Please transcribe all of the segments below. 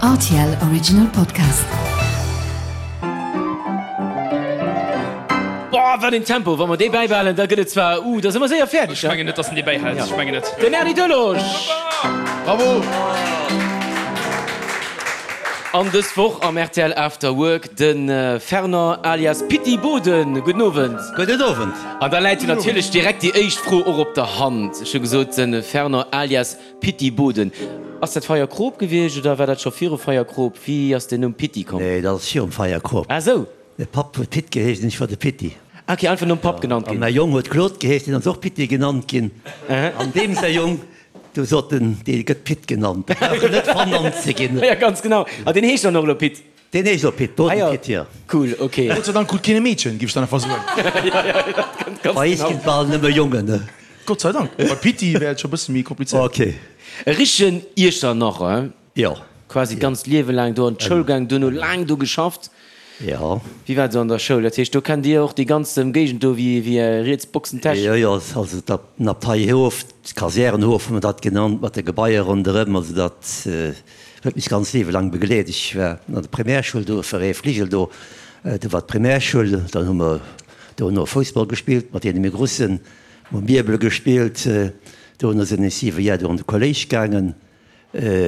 Rtl Original Podcast. Boah, wat een Tempo! Wa mer dee bäibehalen, da gëtt et zwar, uh, da si mer séier fäerdeg. Ech mengen net, dass en dee bäihält. Ech mengen net. Den Erny Delage! Bravo! An dës Woch am rtl After Work de Fernand alias Pitti Boden. Gudden Owend. Gudden Owend. An da läit jo natierlech direkt déi éischt Fro och op der Hand. Ech hu gesot, de Fernand alias Pitti Boden. Ass dat Feierkrop gewiescht oder war dat scho viru Feierkrop? Wéi ass den Numm Pitti komm? Nee, dat ass virum Feierkrop. Ah sou. Mäi Papp huet Pit geheescht an ech war de Pitti. Ah ok, einfach nom Papp genannt ginn. An mäi Jong huet Claude geheescht, deen ass och Pitti genannt ginn. An deem säi Jong, du sot en, dee gëtt Pit genannt, dee brauch en net vernannt ze ginn. Jo, ganz genau. An deen heescht dann och elo Pit? Deen heescht och Pit, Boden Pit, jo. Cool, ok. Gott sei Dank krut keen e Meedchen, géif ech dann einfach soen. Bei eis ginn et bal nëmme Jongen, ne? Gott sei Dank. Bei Pitti wär et scho bësse méi komplizéiert. Ok. E richtegen Iechternacher, hein? Jo. Quasi d'ganzt Liewe laang do an d'Schoul gaang, duerno laang do geschafft. Jo. Wéi war et esou an der Schoul? Dat heescht, do kennt Dir och déi ganz Ëmgéigend do wéi wéi Är riets Boxentäsch? Jo, jo, also den Abteihof, d'Kasärenhof hu mer dat genannt, mat de Gebaier ronderëm. Also dat huet mech d'ganz Liewe laang begleet. Ech war an der Primärschoul do, e Fligel do, do war d'Primärschoul. Dann hu mer dono Foussball gespillt mat deene méi Grussen, hu Mierbel gespillt. Dono sinn ech siwe Jar do an de Kolléisch gaangen.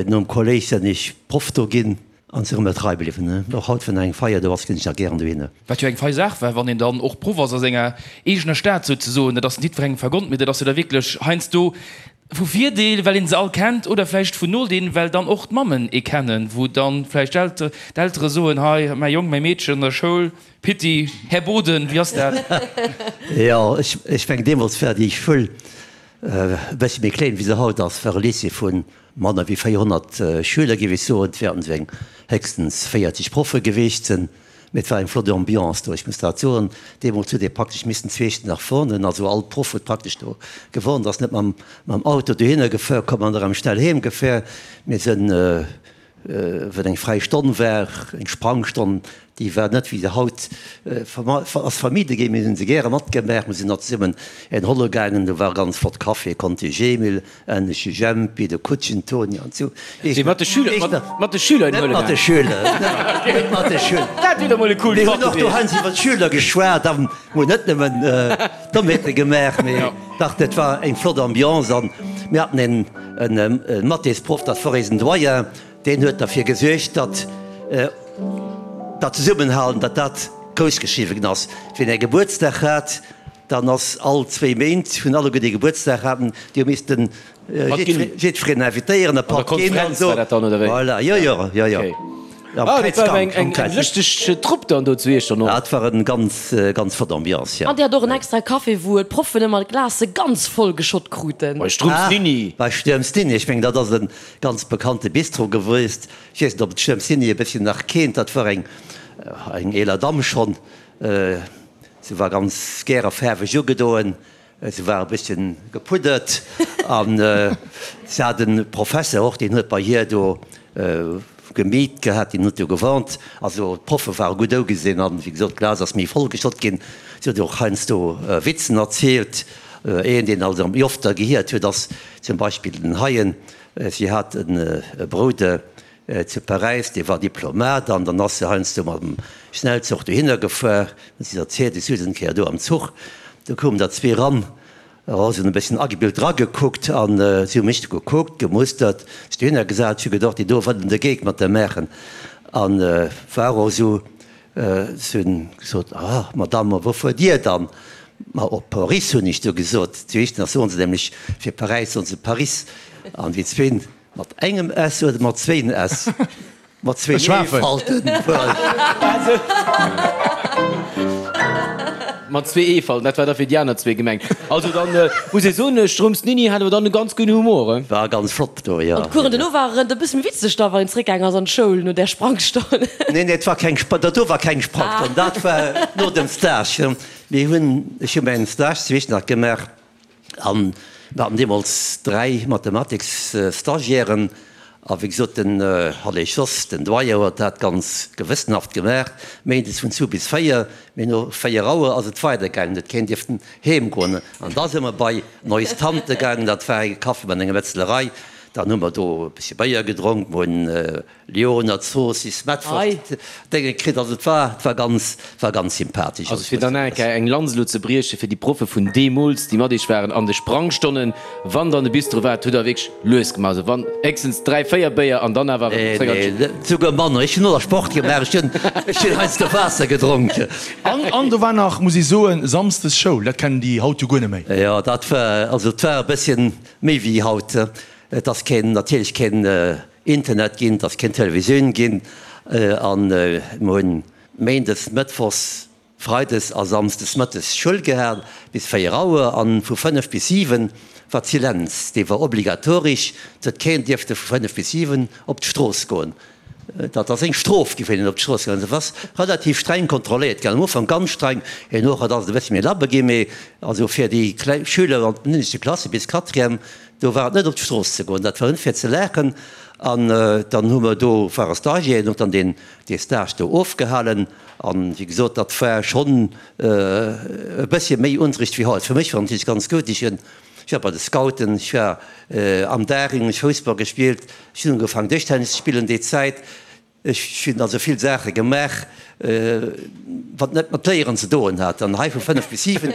Nom Kolléisch senn ech Proff do ginn an sinn erëm trei bliwwen. Och haut, wann eng Feier do ass, ginn ech nach gären dohinner. Wat jo eng fei Saach war, wann een dann och Proff ass a senger eegener Stad souzesoen. Dat ass net jiddwerengem vergonnt, mee dat ass jo da wierklech heiansdo vu Virdeel, well een se all kennt, oder vläicht vun Nodeel, well dann och d'Mammen ee kennen, wou dann vläicht d'Eltere soen, hei mäi Jong, mäi Meedchen an der Schoul, Pitti, Här Boden, wéi ass dat? Jo, ech mengen deemools war déi Schoul E bëssi méi kléin wéi se haut ass, war e Lycée vu manner wéi 400 Schüler, géif ech soen. Et wäerten esou eng héchstens 40 Proffe geweecht sinn. Mee et war eng flott Ambiance do, ech muss dat soen. Deemools huet ee praktesch missen zwee Stonnen nach wohnen. Also all Proff huet praktesch do gewohnt, ass net mam Auto dohinner gefuer komm an erëm schnell heem gefuer. Mir sinn Wat eng fräi Stonn war, eng Sprangstonn, déi war net wéi se haut ass vermidde ginn. Mir hunn se gäre matgemaach. Mir sinn nach zesummen een holle gaangen. Do war ganz flott Café, Conti Jemil, Ennesche Jempi, de Kutschen Toni an esou. Wéi mat de Schüler, mat de Schüler een huele gaangen? Net mat de Schüler, net mat de Schüler. Dat wier doch mol e coolt Mir hunn och do heiansdo iwwer d'Schüler geschwat a hunn net nëmmen Dommheete gemaach, mee dach, dat war eng flott Ambiance an mir haten een E Mathésproff, dat wor eisen Doyen, deen huet derfir gesuergt, datt dat Zesummenhalen, datt dat grouss geschriwwen ginn ass. Wien e Gebuertsdag hat, dann ass all zwéi Méint, hunn alleguer déi Gebuertsdag haten, déi hu missten jiddwereen invitéieren, e Patt ginn an esou. Voilà, jo, jo, jo, jo. Am Ah, dat war eng, eng, eng lëschteg Trupp dann do zu Iechternach. Dat war en ganz, ganz flott Ambiance, jo. An dir hat och en extra Café, wou d'Proffen ëmmer d'Glacë ganz voll geschott kruten. Bei Strumps Nini. Bei Sturms Nini, ech mengen, dat ass e ganz bekannte Bistro gewiesst. Ech weess net, ob et Sturms Nini e bësschen nach kennt. Dat war eng, eng eeler Damm schonn. Se war ganz gäre faarweg ugedoen. Se war e bësschen gepuddert an se hat e Professer och, deen huet bei hir do gemiet gehat, deen huet do gewarnt. Also d'Proffe ware gutt ougesinn an, wéi gesot, d'Glas ass méi voll geschott ginn. Si huet och heiansdo Witzen erzielt. Een, deen also méi oft gehiert huet, ass zum Beispill den Heien. Si hat e Brouder Zu Paräis, dee war Diplomat an dann ass se heiansdo mam Schnellzuch dohinner gefuer. Huet si erzielt, ech souz eng Kéier do am Zuch, do koumen der zwee ran, oh, se hunn e bësschen agebilt dragekuckt an si hu mech du gekuckt, gemustert, sech dohinner gesat. Ech hu gedocht, déi do wëllen de Geek mat der maachen an war och esou. Si hunn gesot, Ah, Madame, a wou fuert Dir dann? Ma op Paris, hunn ech du gesot. Zu Iechternach soen se nämlech fir Paräis soen se Paris an déi zwee Mat engem S oder mat zwéin S? Mat zwéin E-Falten wuel. Mat zwee E-Falten, dat war da fir déi aner zwee gemengt. Also dann muss ee soen, Strumps Nini hat awer dann e ganz gudden Humor, he? War ganz flott do, jo. An d'Coursen dono waren e bësse méi witzeg da, wann een zeréckgaang ass an d'Schoul no där Sprangstonn. Nee, nee, et war keng, dat do war keng Sprangstonn, dat war no dem Stage. Mir hunn, ech hu mäin Stage zu Iechternach gemaach. An mir haten deemools 3 Mathematiksstagiairen. A wéi gesot, den Hallé Jos, den Doyen, huet dat ganz gewëssenhaft gemaach, méindes vun zwou bis 4. Mee no 4 Auer ass et weidergaangen, huet keen dierften heem goen. An da si mer bei Neuss Tante gaangen, dat war e Café mat enger Metzlerei. Dann hu mer do e bëssche Béier gedronk, mer hunn Lyoner Zoossiss, Mettwurscht Dénge kritt. Also et war, et war ganz, war ganz sympathesch. Also fir dann nach eng Kéier eng Lanz elo ze brieche fir déi Proffe vun deemools, déi mat iech waren an de Sprangstonnen, wann der an de Bistro waart, hutt der wierklech lues gemaach. Also wann héchstens 3, 4 Béier an dann awer Nee, nee, souguer manner. Ech hunn och nach Sport gemaach, ech hunn, ech hunn heiansdo Waasser gedronk. An, an do war nach, muss ech soen, samsdes Schoul, dat kennen déi haut jo guer net méi. Jo, dat war, also et war e bësschen méi wéi haut. Et ass keen, natierlech keen Internet ginn, et ass keen Televisioun ginn an mir hunn méindes, mëttwochs, freides a samsdes mëttes Schoul gehat bis 4 Auer an vu 5 bis 7 war d'Silenz, dee war obligatorisch, et huet keen dierfte vu 5 bis 7 op d'Strooss goen. Dat ass eng Strof gi fir een op d'Strooss gaangen ass. Et ass relativ streng kontrolléiert ginn, am Ufank ganz streng, herno ass et e bëssi méi labber ginn, mee also fir déi kleng Schüler an den ënneschte Klasse bis Quatrième, do war et net op d'Strooss ze goen, dat war net fir ze laachen. An dann hu mer do, ware Stagiairen, hunn dann deen dee Stage do ofgehalen an wéi gesot, dat war schonn e bëssche méi Unterricht wéi haut. Fir mech war et natierlech ganz gutt, ech hunn Ech war bei de Scouten, ech war am Daring, ech Foussball gespillt, ech hunn ugefaangen Dëschtennis ze spillen déi Zäit. Ech hunn also vill Saache gemaach, wat net mat Léieren ze doen hat. An hei vu 5 bis 7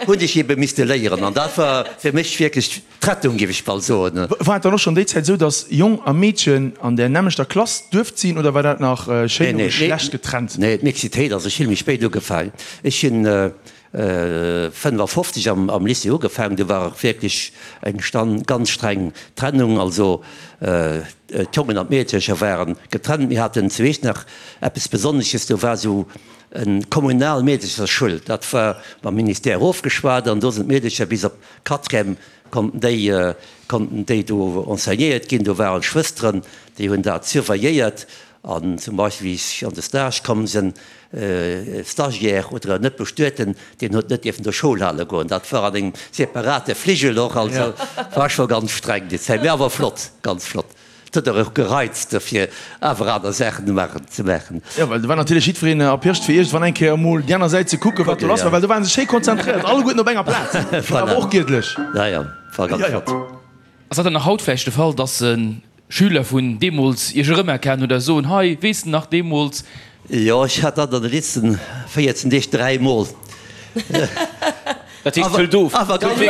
hunn ech ebe misste léieren an dat war fir mech wierklech d'Rettung, géif ech bal soen. War et dann och schonn déi Zäit esou, datt Jong a Meedchen an där nämmlechter Klass duerft sinn oder war dat nach schéin no Geschlecht getrennt? Nee, d'Mixitéit ass ech vill méi spéit ugefaangen. Ech hunn 55 am Lycée ugefaangen, do war och wierklech eng ganz streng Trennung, also d'Jongen an d'Meedercher ware getrennt. Mir haten zu Iechternach eppes Besonnesches, do war esou eng kommunal Meederchersschoul, dat war mam Ministère ofgeschwat an do sinn d'Meedercher bis op Quatrième konnten déi konnten déi do enseignéiert ginn. Do waren Schwësteren, déi hunn dat surveilléiert An zum Beispill wéi ech an de Stage komm sinn, e Stagiaire oder en net Bestueten, deen huet net dierfen do Schoul hale goen. Dat war an engem separate Fligel och. Also war scho ganz streng déi Zäit, mee awer flott, ganz flott. Et huet och gereizt fir awer aner Saachen ze maachen. Jo, well do war natierlech jiddwereen erpirscht fir iergendwann eng Kéier emol déi aner Säit ze kucken, wat do lass war, well do ware se schéi konzentréiert, alleguerten op enger Plaz. Awer och giedlech. Ja, ja, war ganz flott. Ass dat dann nach haut vläicht de Fall, dass Schüler vun deemools Iech erëmerkennen oder soen, Hei, weess de nach deemools? Jo, ech hat dat an de letzten 14 Deeg dräimol. Dat heescht, hëlt of. Awer ganz, nee,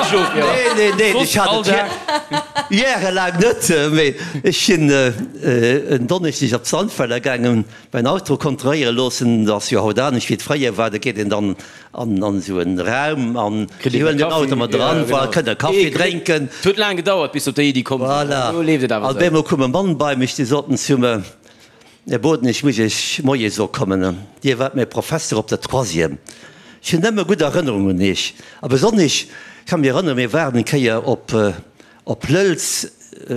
nee, nee, ech hat et järelaang net. Mee ech sinn en Donneschdeg op Sandweiler gaangen, mäin Auto kontrolléiere loossen. Dat ass jo haut anescht wéi et fréier war. Da geet een dann an esou en Raum an si huelen den Auto mat eran, voilà, kënne Kaffi drénken. Et huet laang gedauert bis se op déi Iddi komm sinn, voilà, elo leeft et awer esou. An op eemol koum e Mann bei mech, dee sot zu mer, Här Boden, ech muss Iech Moie soe kommen, Dir waart mäi Professer op der Troisième. Ech hunn nëmme gutt Erënnerungen un Iech a besonnesch, ech ka mech erënneren, mir waren eng Kéier op Op Lëlz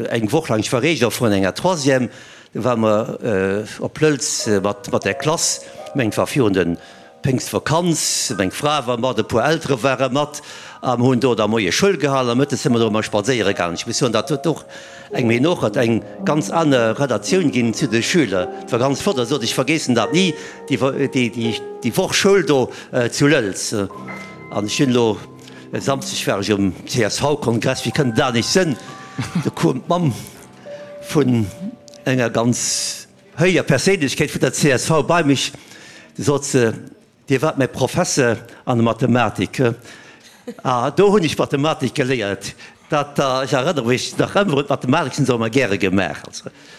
eng Woch laang, ech war Regent vun enger Troisième, do ware mer op Lëlz mat der Klass, ech mengen et war virun de Péngstvakanz, meng Fra war mat, e puer Eltere ware mat a mer hunn do da moies Schoul gehalen a mëttes si mer do ëmmer spadséiere gaangen. Ech muss soen, dat huet och engem herno eng ganz aner Relatioun ginn zu de Schüler. Et war ganz flott a sot, ech vergeessen dat ni, déi Woch Schoul do zu Lëlz. An ech hunn elo. E Samsdeg war ech um CSV-Kongress, wéi kënnt et anescht sënn, do koum d'Mamm vun enger ganz héijer Perséinlechkeet vun der csv bei mech, du sot se, Dir waart mäi Professer an der Mathematik, ah do hunn ech Mathematik geléiert, dat, ech erënnere mech nach ëmmer un d'Mathematik, hunn se och ëmmer gäre gemaach.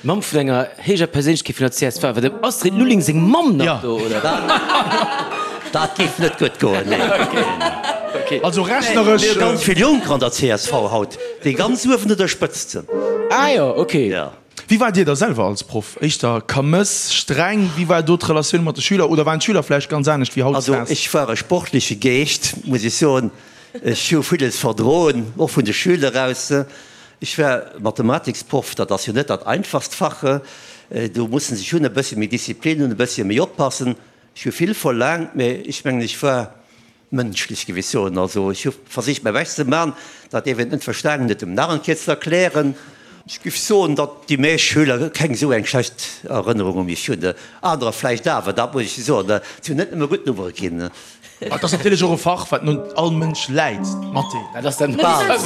Mamm vun enger héijer Perséinlechkeet vun der csv, war dem Astrid Lulling seng Mamm nach do, oder? Dat géif net gutt goen, nee. Also rechneresch. Mir hu ganz vill Jonker an der csv haut, déi ganz uewen un der Spëtzt sinn. Ah jo, ok. Wéi waart Dir da selwer als Proff? Éischter Kamëss, streng? Wéi war do d'Relatioun mat de Schüler? Oder waren d'Schüler vläicht ganz anescht wéi hautdesdaags? Also ech war e sportleche Geescht, muss ech soen. Ech hu villes verdroen, och vun de Schüler aus. Ech war Mathematiksproff, dat ass jo net dat einfachst Fach. Do muss en sech hunn, e bëssche méi Disziplin hunn, e bëssche méi oppassen. Ech hu vill verlaangt, mä ech mengen, ech war mënschlech, géif ech soen. Also ech hu versicht mäi Bescht ze man, dat dee ween et net verstanen huet, em nach eng Kéier ze erklären. Ech géif soen, datt déi meescht Schüler keng esou eng schlecht Erënnerung u mech hunn. Anerer vläicht awer, dat muss ech soen. Et hunn net nëmme gutt Nummere ginn. Et ass natierlech och e Fach, wat nun all Mënsch läit, Mathé. Dat ass dann bal. Bal,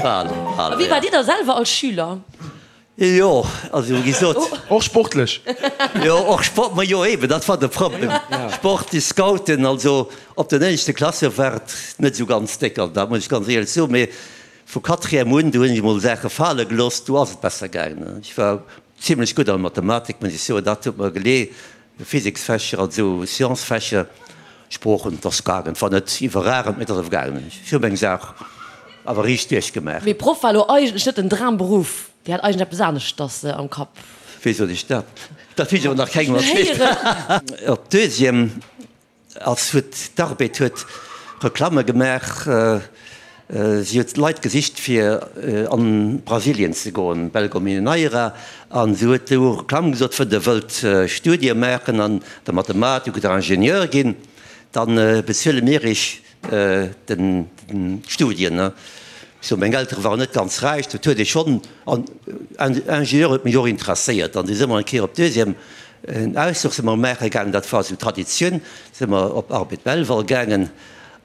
bal, bal. A wéi waart Dir da selwer als Schüler? Jo, also wéi gesot. Och sportlech? Jo, och Sport, ma jo eben, dat war de Problem. Sport, déi Scouten, also op den éischte Klasse war et net esou ganz déck, also dat muss ech ganz éierlech soen, mee vu Quatrième un, do hunn ech emol Saache fale gelooss, do ass et besser gaangen. Ech war zimlech gutt an Mathematik, muss ech soen, dat huet mer gelee. Physiksfächer, also Sciences-Fächer, Sproochen, et ass gaangen. Et war net iwwerragend, mee et ass awer gaangen. Ech hu meng Saach awer riicht duerchgemaach. Mee Proff war elo eigentlech net den Dramberuff, Dir hat eigentlech eppes aneschters am Kapp. Wéi sot ech dat? Dat hunn ech awer nach kengem erzielt. Op Deuxième Ass huet d'Arbed huet Reklamme gemaach. Si huet Leit gesicht fir an Brasilien ze goen, Belgo Mineira, an si huet do Reklamm gesot, wënn der wëllt Studie maachen an der Mathematik oder Ingenieur ginn, dann bezuele mir iech den d'Studien. So meng Eltere waren net ganz räich, dat huet ee schonn, an Ingenieur huet mech och interesséiert an du si mer eng Kéier op Deuxième En Ausfluch si mer maache gaangen, dat war esou Traditioun, si mer op Arbed Belval gaangen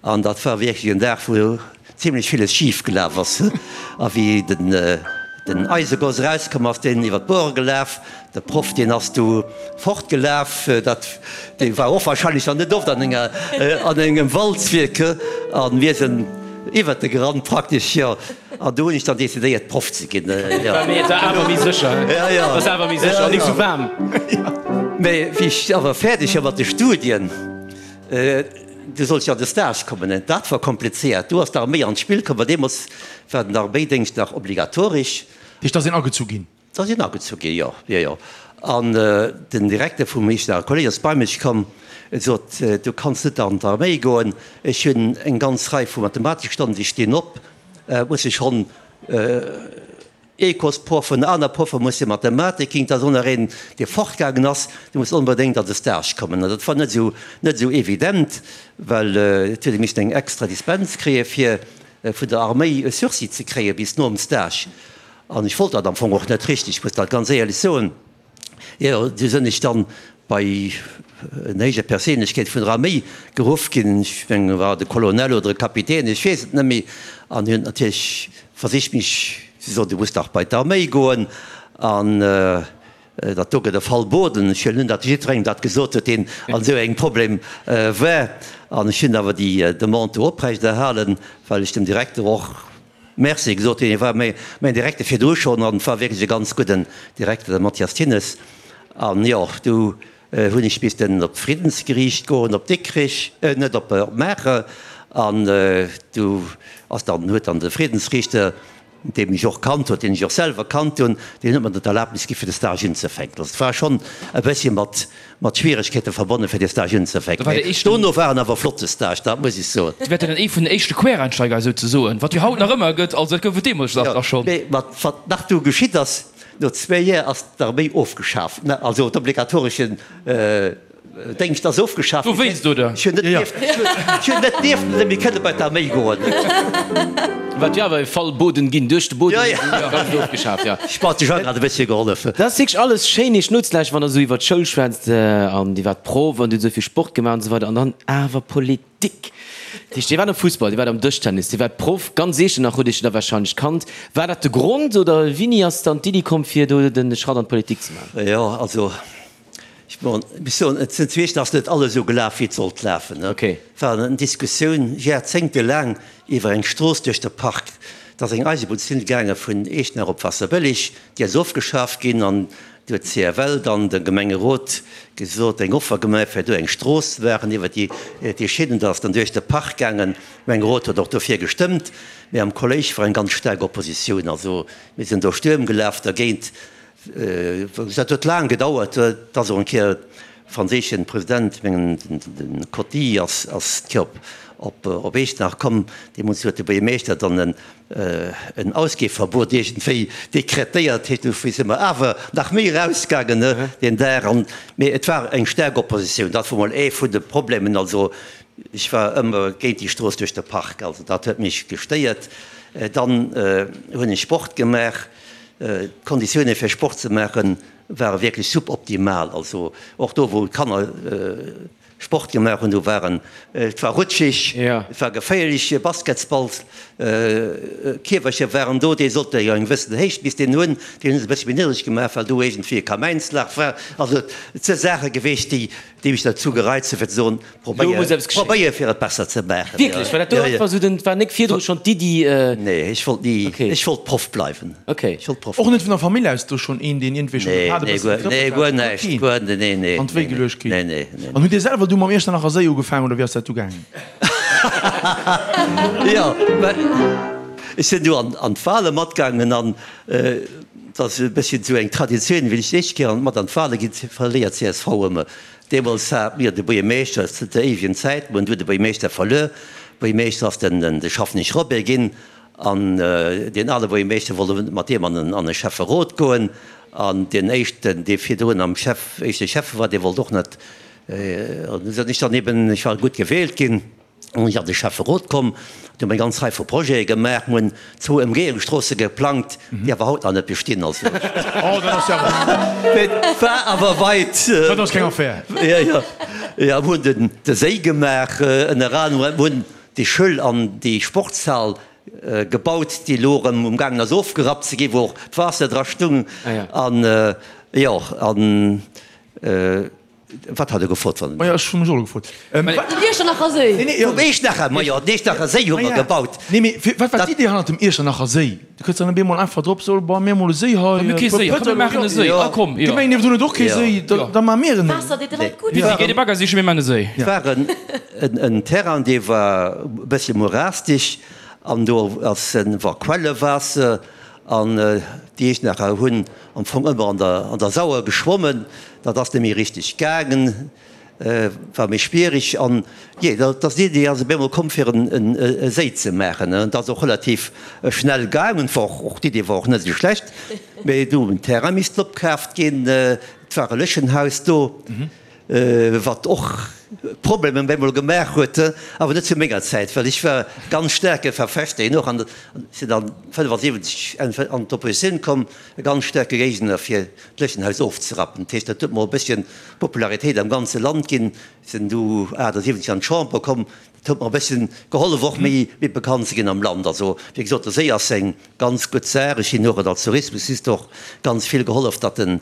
an dat war wierklech en Dag, wou zimlech villes schif gelaf ass. A wéi den den Eisegoss erauskomm ass, deen iwwer d'Bore gelaf, de Proff deen ass du fortgelaf, dat dee war och wahrscheinlech dann net oft an enger an engem Walzwierk, a mir sinn iwwert e gerannt praktesch, jo. An do hunn ech dann decidéiert Proff ze ginn. Mee et war awer méi sécher. Ja, ja. Et ass awer méi sécher an nik sou waarm. Mee wéi ech awer fäerdeg war mat de Studien, du sollt jo an de Stage kommen. An dat war komplizéiert. Do ass d'Arméi an d'Spill komm, well deemools war den Arméidéngscht nach obligatoresch. Dat heescht, da ass een agezu ginn? Da sinn agezu ginn, jo, jo, jo. An den Direkter vum Echternacher Kolleg ass bei mech komm, en sot, Du kanns net an d'Arméi goen, ech hunn eng ganz Rei vu Mathematikstonnen, déi stinn op, muss ech schonn Ecosproffen, aner Proffe musse Mathematik ginn, et ass och nach een, dee fortgaangen ass, dee muss onbedéngt an de Stage kommen. An dat war net esou, net esou evident, well et huet ee missen eng extra Dispens kréie fir vun der Arméi e Sursis ze kréie bis nom Stage. An ech wollt dat am Fong och net richteg, ech muss dat ganz éierlech soen. Jo, du sënn ech dann bei en héije Perséinlechkeet vun der Arméi geruff ginn, ech mengen e war de Colonel oder e Kapitän, ech weess et net méi, an hien huet natierlech versicht mech ze soen, du muss dach bei d'Arméi goen an dat do gëtt e Fall Boden. Ech huelen un, datt jiddwerengem dat gesot huet, deen an esou engem Problem war. An ech hunn awer déi Demande do oprechterhalen, well ech dem Direkter och Merci gesot hunn. Hie war mäin Direkter virdru schonn an war wierklech e ganz gudden Direkter, de Mathias Thinnes. An jo, du hunn ech missten op d'Friddensgeriicht goen, op Dikrich, net op Maacher. An du ass dann, huet dann de Friddensriichter, dee mech och kannt huet, deen ech och selwer kannt hunn, deen huet mer dann d'Erlaabnis gi fir de Stage unzefänken. Also et war schonn e bëssche mat Mat Schwieregkeete verbonnen, fir dee Stage unzefänken. Mee dono war en awer flotte Stage, dat muss ech soen. Dir waart jo dann ee vun den éischte Quereinsteiger souzesoen, wat jo haut nach ëmmer gëtt, also dat gouf et deemools dach schonn. Mee wat nach du geschitt ass, no zwéi Joer ass d'Arméi ofgeschaf, also d'obligatoreschen Déngscht ass ofgeschaf ginn. Dowéinst, oder? Ech hunn net dierften, ech hunn net dierften méi kënne bei d'Arméi goen. Wat jo awer e Fall Boden ginn, duerch de Boden ganz ofgeschaf, jo. Sport, de Jean hat e bëssche gehollef. Dat ass wierklech alles schéin iech nozelauschteren, wann der esou iwwer d'Schoul schwätzt an iwwer d'Proff an dir hutt esou vill Sport gemaach an esou weider an dann awer Politik. Dat heescht, dir waart am Fussball, dir waart am Dëschtennis, dir waart Proff, ganz Eechernach hutt iech da warscheinlech kannt. War dat de Grond oder wéini ass dann d'Iddi komm fir do de Schratt an d'Politik ze maachen? Jo, also Ech muss soen, et sinn zwee, et ass net alles esou gelaf, wéi et sollt lafen. Et war eng Diskussioun jarzéngtelaang iwwer eng Strooss duerch de Park. Et ass eng Eisebunnslinn gaange vun Eechtenach op Waasserbëlleg, déi ass ofgeschaf ginn an du huet d'CFL dann dem Gemengerot gesot, eng Offer gemaach, fir do eng Strooss ze maachen iwwer déi Schinnen. Dat ass dann duerch de Park gaangen. De Gemengerot huet och dofir gestëmmt, mä am Kolléisch war eng ganz staark Oppositioun. Also mir sinn do Stuerm gelaf dergéint. Dat huet laang gedauert, et ass och eng Kéier de franséischen President, mengen de Coty, ass d'Kéier op Eechtenach komm. Deemools huet de Buergermeeschter dann en Ausgehverbot iergendwéi dekretéiert. Dofir si mer awer nach méi erausgaangen deen Dag. Mee et war eng staark Oppositioun. Dat wor mol ee vun de Problemen. Also ech war ëmmer géint déi Strooss duerch de Park. Also dat huet mech gestéiert. Dann hunn ech Sport gemaach. D'Konditioune fir Sport ze maache ware wierklech suboptimal. Also och do wou d'Kanner. Sport gemaach hunn. Do waren, et war rutschig, et war geféierlech, Basketsballs, Kierwercher waren do, déi sollte jo eng gewëssen Héicht misst een hunn, déi hunn se e bëssche méi niddreg gemaach, well do iergendwéi e Kamäinslach war. Also et si Saache geweecht, déi déi mech derzou gereizt hunn, fir ze soen, probéier, probéier fir et besser ze maachen. Wierklech? Well dat do einfach esou den, war nek virdru schonn d'Iddi? Nee, ech wollt ni, ech wollt Proff bleiwen. Ech wollt Proff Och net vun der Famill aus do schonn een, deen iergendwéi schonn de Pad e bësse getrëppelt hat? Nee, guer näischt, guer, nee, nee. An d'Wéi geluecht kritt? Nee, nee, nee. An hutt Dir selwer du mam Iechternacher Séi ugefaangen oder wéi ass dat du gaangen? Jo, mä ech sinn du an d'Wale matgaangen an et ass e bësschen esou eng Traditioun, wéi ech déi éischt Kéier mat an d'Wale ginn, verléiert csv ëmmer. Deemools hat mir de Buergermeeschter, zënter éiwegen Zäiten, mir hunn du de Buergermeeschter verluer. Buergermeeschter ass den de Schaffnich Robert ginn an deen ale Buergermeeschter wollt net mat deem an de Schäfferot goen an deen éischten, dee virdrun am Schäff, éischte Schäffe war, dee wollt och net. An du sinn ech dann eben, ech war gutt gewielt ginn, an ech an de Schäfferot komm, do hu mer eng ganz Rei vu Projete gemaach, mir hunn zwou Ëmgehungsstroosse geplangt, déi awer haut nach net bestinn. Also Oh, dat ass jo awer. Et war awer weit. Dat ass keng Affär. Jo, jo. Jo, mir hunn den, de Séi gemaach, ënner anerem, mir hunn déi Schoul an déi Sportshal gebaut, déi elo erëm um gaangen ass ofgerappt ze ginn, wou och d'Waasser dra stung. An jo, an. Wat hat e gefrot? Wann. Majo, ech hu mech och elo gefrot. Den Iechternacher Séi. Nee, nee, Vum Iechternacher, majo, den Iechternacher Séi hu mer gebaut. Nee, mee fir, wat war d'Idee hannert dem Iechternacher Séi? Du kënns dann op eemol einfach drop, so, bon, mir mol e Séi hei. Mir hu kee Séi, komm mir maachen e Séi. Ah komm, jo. D'Gemeng niewendrun huet och kee Séi, da, da maache mir en. Waasser deet de Leit gutt. Mir gi de Bagger sichen, mir maachen e Séi. Et war en, en Terrain, dee war e bëssche morastig an do ass en, war Quellewaasser an déi Iechternacher hunn am Fong ëmmer an der, an der Sauer geschwommen. Dat ass net méi richteg gaangen, war méi schwierig. An jee, dat ass d'Idee ass op eemol komm, fir e Séi ze maachen. An dat ass och relativ schnell gaangen. War och, d'Idee war och net esou schlecht. Mee du hunn Terrain missten opkaaft ginn. Et war e Léchenhaus do, wat och Problemer op eemol gemaach huet. Awer net zu menger Zäit, well ech war ganz staarke Verfechter hien och. An sinn dann 75 an d'Oppositioun komm, e ganz staarke Géigner fir d'Léchenhaus ofzerappen. Dat heescht, dat huet mer e bësschen Popularitéit am ganze Land ginn. Sinn du 78 an d'Chamber komm, dat huet mer e bësschen gehollef och méi bekannt ze ginn am Land. Also wéi gesot, de Séi ass eng ganz gutt Saach. Ech hunn och et als Tourismusminister och ganz vill gehollef, datt den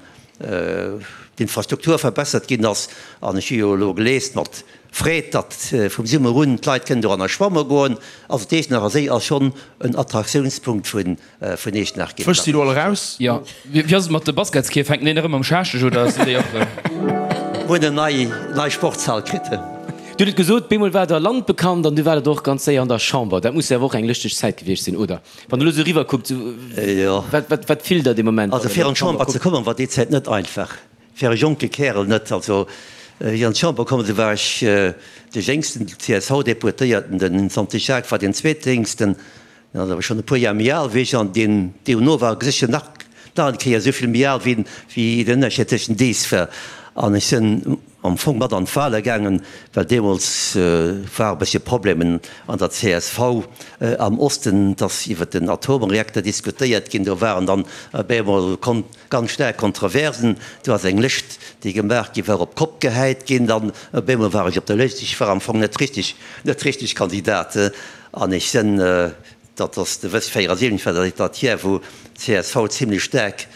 d'Infrastruktur verbessert ginn ass. An ech hu jo elo gelies mat Freed, datt vum Summer un d'Leit kënnen doranner schwamme goen. Also d'Iechternacher Séi ass schonn en Attraktiounspunkt vun vun Eechtenach ginn. D'Fësch si lo all eraus. Jo, wéi ass et mat de Basketskierf? Fänken déi nach ëmmer am Schaascheg oder sinn déi och erëm? Hunn en nei nei Sportshal kritt. Dir hutt et gesot, bemol war der landbekannt an du waart och ganz séier an der Chamber. Dat muss jo awer och eng lëschteg Zäit gewiescht sinn, oder? Wann der elo sou eriwwer kuckt, wat wat wat fillt der dee Moment? Also fir an d'Chamber ze kommen, war déi Zäit net einfach. Fir e jonke Kärel net. Also wéi ech an d'Chamber komm sinn, war ech de jéngsten CSV-Deputéierten, den Santi Jacques war deen zweetjéngsten. Deen ass awer schonn e puer Jar méi al wéi ech an deen duerno war sécher nach nach eng Kéier esou vill méi al wéi wéi den Ënnerscheed tëschent dees war. An ech sinn am Fong mat an d'Wale gaangen, well deemools war e bëssche Problemen an der csv am Osten, et ass iwwer den Atomreakter diskutéiert ginn, do waren dann op eemol ganz staark Kontroversen, do ass eng Lëscht déi gemaach gi war op d'Kopp gehäit ginn, dann op eemol war ech op der Lëscht, ech war am Fong net richteg net richteg Kandidat. An ech sinn, dat ass de wëss 74 war dat dat Jar wou csv zimlech staark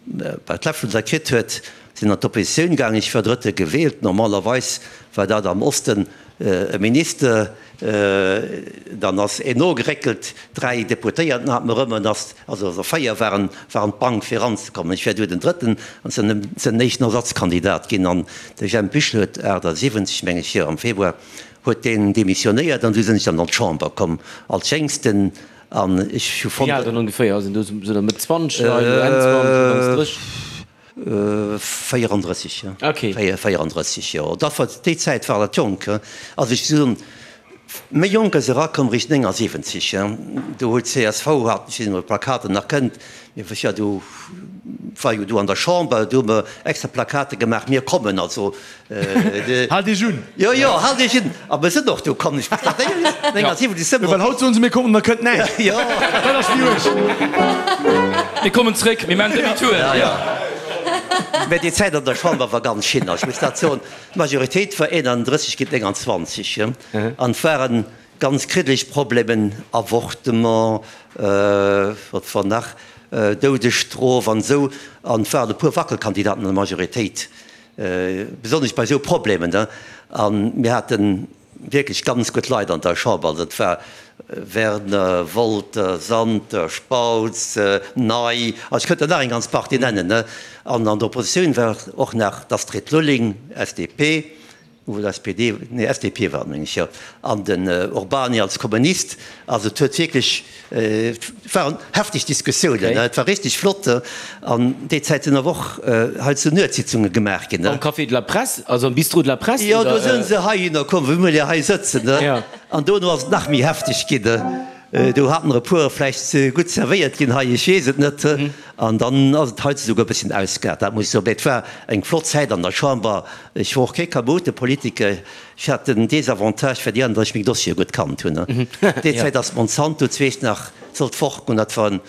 bei d'Läffelen kritt huet, sinn an d'Oppositioun gaangen. Ech war Drëtte gewielt. Normalerweis war dat am Osten e Minister. Dann ass een nogeréckelt, 3 Deputéierten hat mer erëm, an ass, also 4 waren waren d'Bank fir eranzekommen. Ech war du den Drëtten an sinn den éischten Ersatzkandidat ginn. An de Jemp Büchel huet 78, meng ech, jo am Februar, huet deen demissionéiert an du sinn ech dann an d'Chamber komm als Jéngsten an ech hu fonnt. Wéi al dann ongeféier? Ass een do sou der Mëtt 20 Leit oder Enn 20, Ufanks 30? 34, jo. Okay. 34, jo. Dat war, déi Zäit war dat jonk, he. Also ech soen, méi jonk ass erakomm réischt 79, he. Do huet csv, hat, ech weess net ob der d'Plakaten nach kennt, mir ech war do, war jo do an der Chamber, do hu mer extra Plakate gemaach, mir kommen, also Haalt Iech un! Jo, jo, haalt Iech un! A mir sinn och do komm. Ech muss nach 79 sëmmer. Jo, well haut soen se, mir kommen, da kënnt näischt. Jo. Dat ass méi uerg. Mir kommen zréck, mir maachen Demi-tour. Ja, ja. Mä déi Zäit an der Chamber war ganz schin. Ech muss dat soen, d'Majoritéit war 31 géint 29 an et waren ganz kriddeleg Problemen, Avortement, wat war nach, Doudesstrof an esou. An et waren e puer Wackelkandidaten an der Majoritéit, besonnesch bei esou Problemen. A mir haten wierklech ganz gutt Leit an der Chamber. Also et war Werner, Wolter, Santer, Spautz, Ney, also ech kënnt der nach eng ganz Partie nennen. An an der Oppositioun war och nach d'Astrid Lulling, SDP, oder SPD, nee SDP war et meng ech, jo, an den Urbany als Kommunist. Also et huet wierklech, et waren hefteg Diskussiounen, et war richteg flott. An déi Zäit sinn awer och hei zu Nuetssitzunge gemaach ginn. Am Café de la Presse, also am Bistrot de la Presse? Jo, do sinn se heihinner komm, wou mir jo hei sëtzen. An dono ass et nach méi hefteg ginn. Do haten der e puer vläicht ze gutt zerwéiert ginn hei, ech weess et net. An dann ass et hei esouguer e bësschen ausgeaart, dat muss ech soen. Mee et war eng flott Zäit an der Chamber. Ech war och kee Chaotepolitiker. Ech hat den Desavantage fir déi aner, datt ech meng Dossiere gutt kannt hunn. Déi Zäit ass Monsanto zweescht nach sollt fortgoen. Dat war en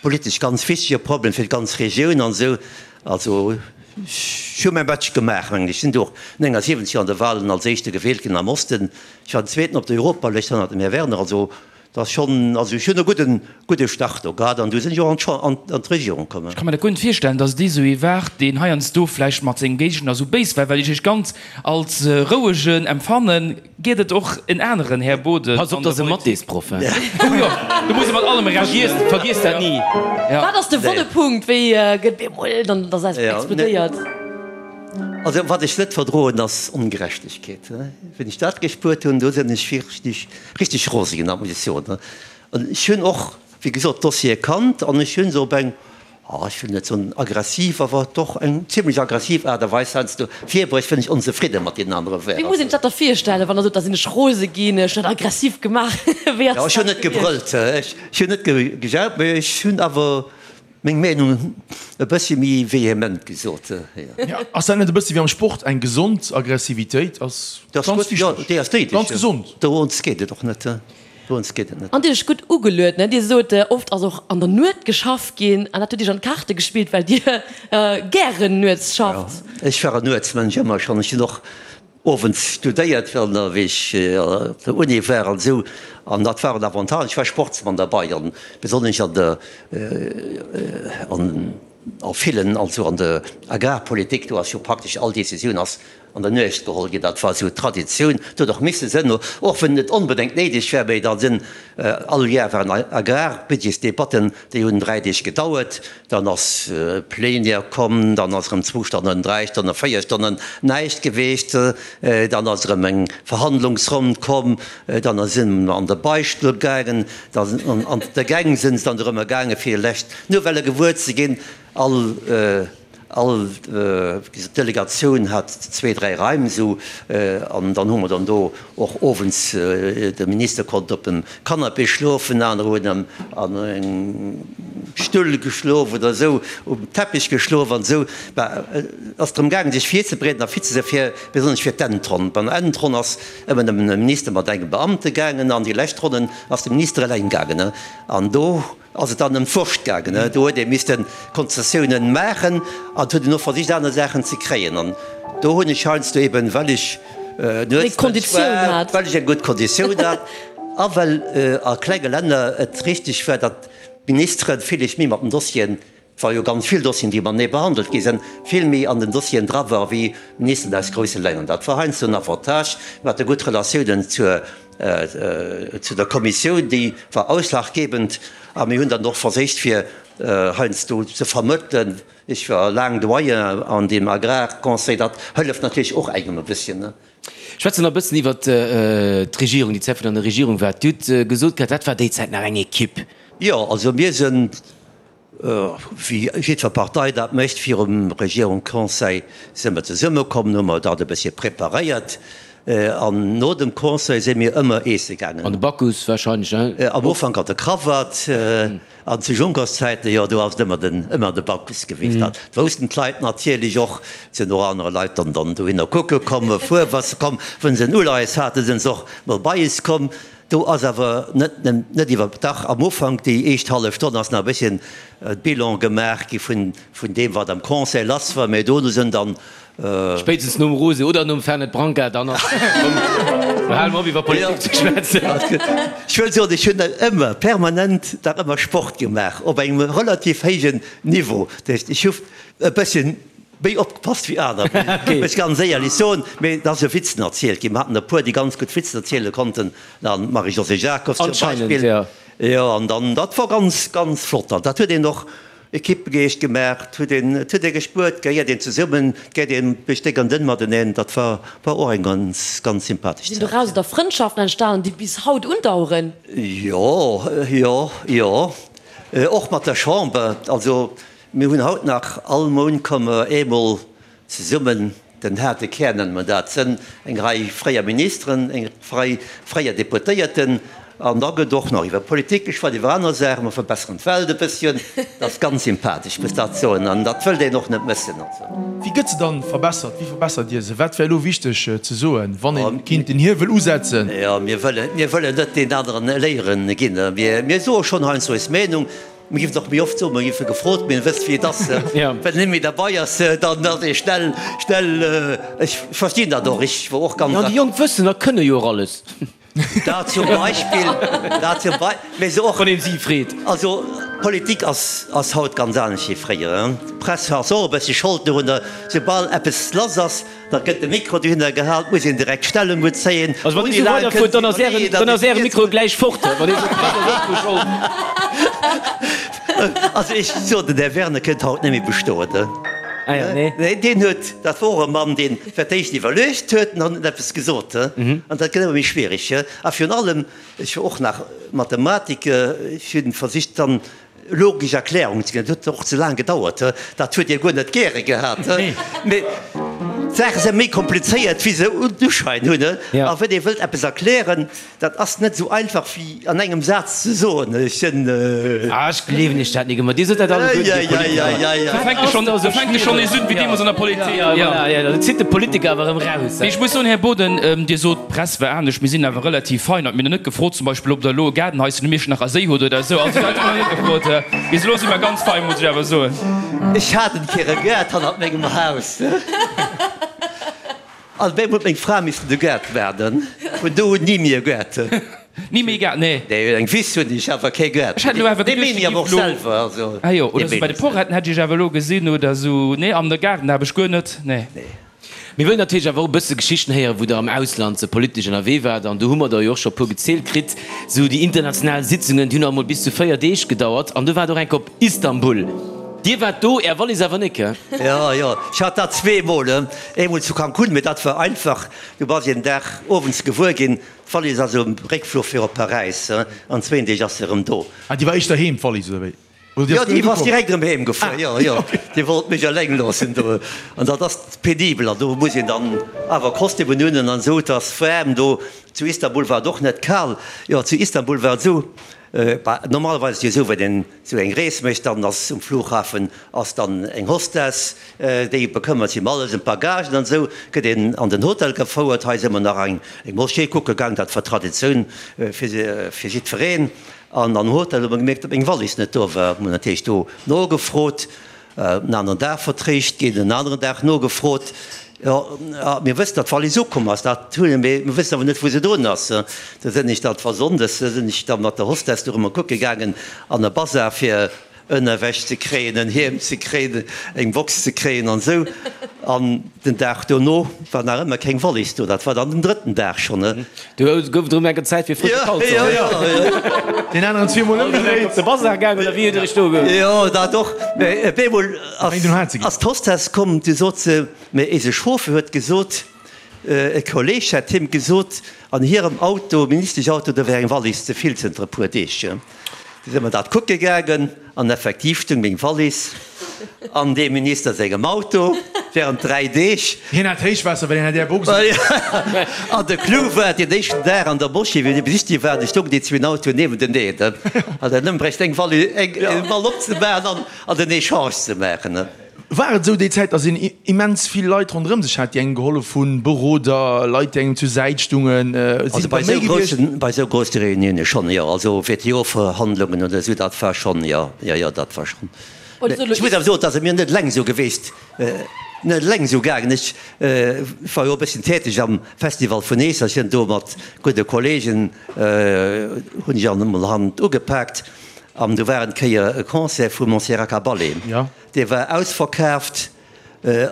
politesch ganz wichtege Problem fir d'ganz Regioun an esou. Also ech hu mäi Batch gemaach, mengen ech. Ech sinn do och 79 an de Wahlen als Éischte gewielt ginn am Osten. Ech war den Zweeten op der Europalëscht hannert dem Här Werner. Also dat ass schonn, also ech hunn e gudden, gudde Start do gehat an du sinn ech och an d'Champ, an d'Regierung komm. Ech ka mer dat guer net virstellen, datt et esou ee war, deen heiansdo vläicht mat sengem Géigner esou béis war, well ech iech ganz als rouegen empfannen. Gétt et och en aneren Här Boden Pass op, an der dat ass e Politik? Mathésproff, hein. Oh jo, do muss e mat allem rechnen. Vergiess dat ni. Wat ass de wonne Punkt? Wéi gëtt bemol dann dass eppes explodéiert? Also wat ech net verdroen ass Ongerechtegkeet. Wéi ech dat gespuert hunn, do sinn ech richteg, richteg rose ginn, dat muss ech soen. An ech hunn och, wéi gesot, d'Dossiere kannt an ech hu se op eng, ech wëll net soen aggressiv, awer doch eng zimlech aggressiv Aart a Weis heiansdo virbruecht, wann ech onzefridde mat deenen anere war. Wéi muss een sech dat da virstellen, wann Der sot, da sinn ech rose ginn, ech hunn dat aggressiv gemaach? Wéi ass Jo, ech hunn dat net gewiescht? gebrëllt, ech hunn net gejaut, mee ech hunn awer meng Meenung e bëssi méi vehement gesot. Jo, ass dat net e bëssi wéi am Sport, eng gesond Aggressivitéit ass ganz wichteg, Jo, déi ass néideg, ganz gesond. Dorunns geet et och net. Dorëms geet et net. An Dir hutt gutt ugeluet, ne? Dir sot, oft ass och an der Nuet geschafft ginn an dat huet Iech an d'Kaarte gespillt, well Dir gären nuets schafft. Jo, ech war en Nuetsmënsch ëmmer schonn. Ech hunn och owends studéiert, wéi ech op der Uni war an esou. An dat war en Avantage. Ech war Sportsmann derbei an besonnesch an der, an a villen, also an der Agrarpolitik, do ass jo praktesch all Decisioun ass an der Nuecht geholl ginn. Dat war esou d'Traditioun. Et huet och misse sënn, och wann et net onbedéngt néideg war, mee da sinn all Jar waren Agrarbudgetsdebatten, déi hunn 3 Deeg gedauert. Dann ass Plénière komm, dann ass erëm zwou Stonnen, 3 Stonnen, 4 Stonnen näischt geweecht. Dann ass erëm eng Verhandlungsronn komm, dann si mer an de Beistull gaangen, dann an de Gäng sinn se dann erëm gaange fir lescht Nouvellë gewuer ze ginn. All All Delegatioun hat zwee, dräi Raim esou an dann hu mer dann do och owends, de Minister konnt op dem Canapé schlofen, aner hunn an engem Stull geschlof oder esou, um Teppich geschlof an esou. Bah, et ass drëm gaangen, sech virzebereeden a fit ze sinn, fir besonnesch fir d'Endronn. Bei der Endronn ass ëmmer nëmmen e Minister mat engem Beamte gaangen an déi lescht Ronnen ass de Minister eleng gaangen an do, ass et dann ëm d'Wurscht gaangen. Do huet ee misste Konzessiounen maachen an et huet een och versicht aner Saachen ze kréien. An do hunn ech heiansdo eben, well ech Nuetsmënsch war, well ech eng gutt Konditioun hat a well a klenge Länner et richteg war, datt d'Ministere villich méi mat den Dossieren, et war jo ganz vill Dossieren, déi matenee behandelt gi sinn, vill méi an den Dossieren dra ware wéi Ministeren aus grousse Länner. Dat war heiansdo en Avantage. Mir hate gutt Relatiounen zur Zu der Kommissioun, déi war ausschlaggebend a mir hunn dann och verséicht fir heiansdo ze vermëttelen. Ech war laang Doyen an deem Agrarconseil, dat hëlleft natierlech och engem e bësschen. Schwätzen nach e bëssen iwwert d'Regierung, déi Zäit wou Der an der Regierung waart. Dir hutt gesot gehat, dat war déi Zäit nach eng Equipe. Jo, also mir sinn Wéi jiddwer Partei dat mécht, virum Regierungsconseil si mer zesummekomm, hu mer dat e bëssche preparéiert an no dem Conseil si mir ëmmer eesse gaangen. An de Bacchus wahrscheinlech, hein? Am Ufank an de Krawatt an zu Junckers-Zäiten, jo, do ass et ëmmer den, ëmmer de Bacchus gewiescht. Dat woussten d'Leit natierlech och. Et sinn och aner Leit dann dann dohinner kucke komm, e puer wa se komm, wa se en Uleies haten, sinn se och mol bei is komm. Do ass awer net, net iwwer, dach am Ufank, déi éischt hallef Stonn ass nach e bësschen Bilan gemaach gi vun, vun deem wat am Conseil lass war, mä dono sinn dann. Spéitstens nom Rosé oder nom Fernet Branca, dann ass komm, lo hale mer op iwwer Politik ze schwätzen. Ech wëll soen, ech hunn ëmmer permanent dach ëmmer Sport gemaach op engem relativ héijen Niveau. Dat heescht, ech hu e bësschen méi opgepasst wéi aner, muss ech ganz éierlech soen. Mee et ass jo Witzen erzielt ginn. Mer haten e puer, déi ganz gutt Witzen erziele konnten, d'Marie-Josée Jacobs zum Beispill. Jo, an dann, dat wor ganz, ganz flott. An dat huet een och Equippegeescht gemaach, et huet een, et huet ee gespuert, et gehéiert een zesummen, et geet een duerch déck an dënn mateneen. Dat war, war och eng ganz, ganz sympathesch Sinn Zäit. doraus da Frëndschaften entstanen, déi bis haut undaueren? Jo, jo, jo. Och mat der Chamber. Also mir hunn haut nach, all Mount komme mer eemol Zesummen, den haarte Kär nenne mer dat, sënn eng Rei fréier Ministeren, eng Rei fréier Deputéierten, an da gëtt och nach iwwer Politik geschwat, iwwer aner Saachen, mer verbesseren d'Welt e bësschen. Dat ass ganz sympathesch, muss dat soen, an dat wëllt een och net mëssen. Wéi gëtt se dann verbessert? Wéi verbessert Dir se? Wat wär elo wichteg ze soen, wann ee kinnt den Hiewel usetzen? Jo, mir wëllen, mir wëllen net deen aneren Léieren ginn. Mir soe schonn heiansdo eis Meenung. Mir géifen et och méi oft soen, mir géife gefrot, mee wësst wéi et ass, wann een net méi derbei ass, dann ass ee schnell, schnell, ech verstinn dat och, ech wor och ganz. Jo, déi Jonk wëssen a kënne jo och alles. Dat zum Beispill, dat zum Bei, mee se och. Wann een si freet. Also Politik ass, ass haut ganz anescht wéi fréier. D'Press ass och e bëssi Schold dorunner, soubal eppes lass ass, Da gëtt de Mikro dohinner gehal, et muss een direkt Stellung bezéien. Also wann Dir esou weiderfuert, dann ass Ären, dann ass Äre Mikro gläich fort. Wann Dir esou, d'Press ass och dru Schold. Also ech soen, den Här Werner kënnt haut net méi bestoen. Ah jo, nee. Nee, deen huet, dat wor och e Mann, deen fir d'éischt iwwerluecht huet an dann huet en eppes gesot. An dat gëtt ëmmer méi schwierig. A virun allem, ech war och nach Mathematiker, ech hunn versicht dann Logesch Erklärung ze ginn. Dat huet och ze laang gedauert, dat huet Dir guer net gäre gehat. Mee d'Saache si méi komplizéiert, wéi se den Uschäin hunn. A wann ee wëllt eppes erklären, dat ass net esou einfach wéi an engem Saz ze soen. Ech sinn. Ah, ech gleewen Iech dat nik ëmmer. Dir sot dat alleguerten, Dir Politiker. Do fänkt e schonn, do fänkt e schonn nees un, wéi deemools an der Politik. Jo, voilà, jo, do zitt de Politiker awer erëm raus. Mee ech muss soen, Här Boden, Dir sot, d'Press war anescht. Mir sinn awer relativ fein. Mir hunn net gefrot, zum Beispill, ob Der elo e Gaardenhaischen um Iechternacher Séi hutt oder esou. Also dat hu mer net gefrot. Bis elo si mer ganz fein, muss ech awer soen. Ech hat en Kéier e Gaart hannert mengem Haus. An op eemol huet meng Fra missen de Gaart waarden. Vun do un ni méi e Gaart. Ni méi e Gaart, nee. Nee, eng Wiss hunn ech, awer kee Gaart. Ech hätt elo awer Dee geduecht, méi Dir awer och giff elo. selwer, also. Ah jo, oder esou bei de Poretten hätt ech Iech awer elo gesinn oder esou. Nee, an de Gaarden habe ech guer net, nee. Nee. Mir wëllen natierlech awer och e bësse Geschichten héieren, wou Der am Ausland politesch ënnerwee waart. An do hu mer der jo och scho e puer gezielt kritt. Esou déi international Sitzungen, déi hunn alt mol bis zu 4 Deeg gedauert. An du waart och eng Kéier op Istanbul. Dir waart do, Är Wallis awer net, gell? Jo, jo, ech hat dat zweemol. Eemol zu Cancún, mee dat war einfach. Du bass een Dag owends gewuer ginn, d'Wallis ass um Réckfluch fir op Paräis, an zwéin Deeg ass se erëm do. Ah, déi war éischter heem, d'Wallis, oder wéi? Jo, déi ass direkt erëm heem gefuer. Jo, jo, déi wollt mech eleng loossen do. An dat ass penibel. An do muss een dann awer Kostümen un an esou. Et ass waarm do. Zu Istanbul war et och net kal. Jo, zu Istanbul war et esou, bah, normalerweis ass et jo esou, wann een esou eng Rees mécht, dann ass um Flughafen ass dann eng Hostess, déi bekëmmert sech ëm alles, ëm d'Bagagen an esou. Gëtt een an den Hotel gefouert. Hei si mer nach eng Moschee kucke gaang, dat war Traditioun fir jiddwereen. An am Hotel hu mer gemierkt, datt meng Wallis net do war. Hunn natierlech do nogefrot, en aneren Dag vertréischt ginn, en aneren Dag nogefrot. Jo, mir wëssen, datt d'Wallis ukomm ass, dat hunn mir, mee mir wëssen awer net, wou se drun ass. Du sinn ech dann, et war sonndes, du sinn ech da mat der Hostess do erëm kucke gaangen an e Bazar, fir Ënnerwäsch ze kréien, en Hiem ze kréien, eng Box ze kréien an esou. An den Dag dono war nach ëmmer keng Wallis do. Dat war dann den drëtten Dag schonn. Do gouf et erëm enker Zäit fir frësche Kalzong. Jo, jo, jo. Deen aneren zweemol ëmgedréit. Op de Bazar gaang oder wéi huet Dir Iech do ge. Jo, dat och. Mä op eemol ass d'Hostess komm, du sot se, mä eise Chauffeur huet gesot, e Kolleeg hätt him gesot, an hirem Auto, Ministeschauto, do wär eng Wallis ze vill zënter e puer Deeg. Du si mer dat kucke gaangen an effektiv stung meng Wallis an deem Minister sengem Auto während 3 Deeg. Hien hat Héichwaasser, well hien hat Är Box un. An de Clou war, deen éischten Dag an der Moschee, wéi mir besichtige waren, stoungen déi zwee Autoen niewenteneen. An dann ëm bréicht eng Wallis, eng Wall opzemaachen an den Echange ze maachen. War et esou déi Zäit, datt een immens vill Leit ronderëm sech hat, déi engem gehollef hunn, Beroder, Leit, déi engem zur Säit stungen? Sinn et der méi gewiescht? Bei esou grousse Reunioune schonn, jo. Also WTO-Verhandlungen oder esou, dat war schonn, jo, jo, jo, dat war schonn. Ech muss awer soen, et ass mir net eleng esou gewiescht, net eleng esou gaangen. Ech war jo e bësschen täteg am Festival vun Eeserchen do mat gudde Kollegen, hunn ech an emol Hand ugepaakt. An do war en Kéier e Concert vu Montserrat Caballé. Dee war ausverkaaft.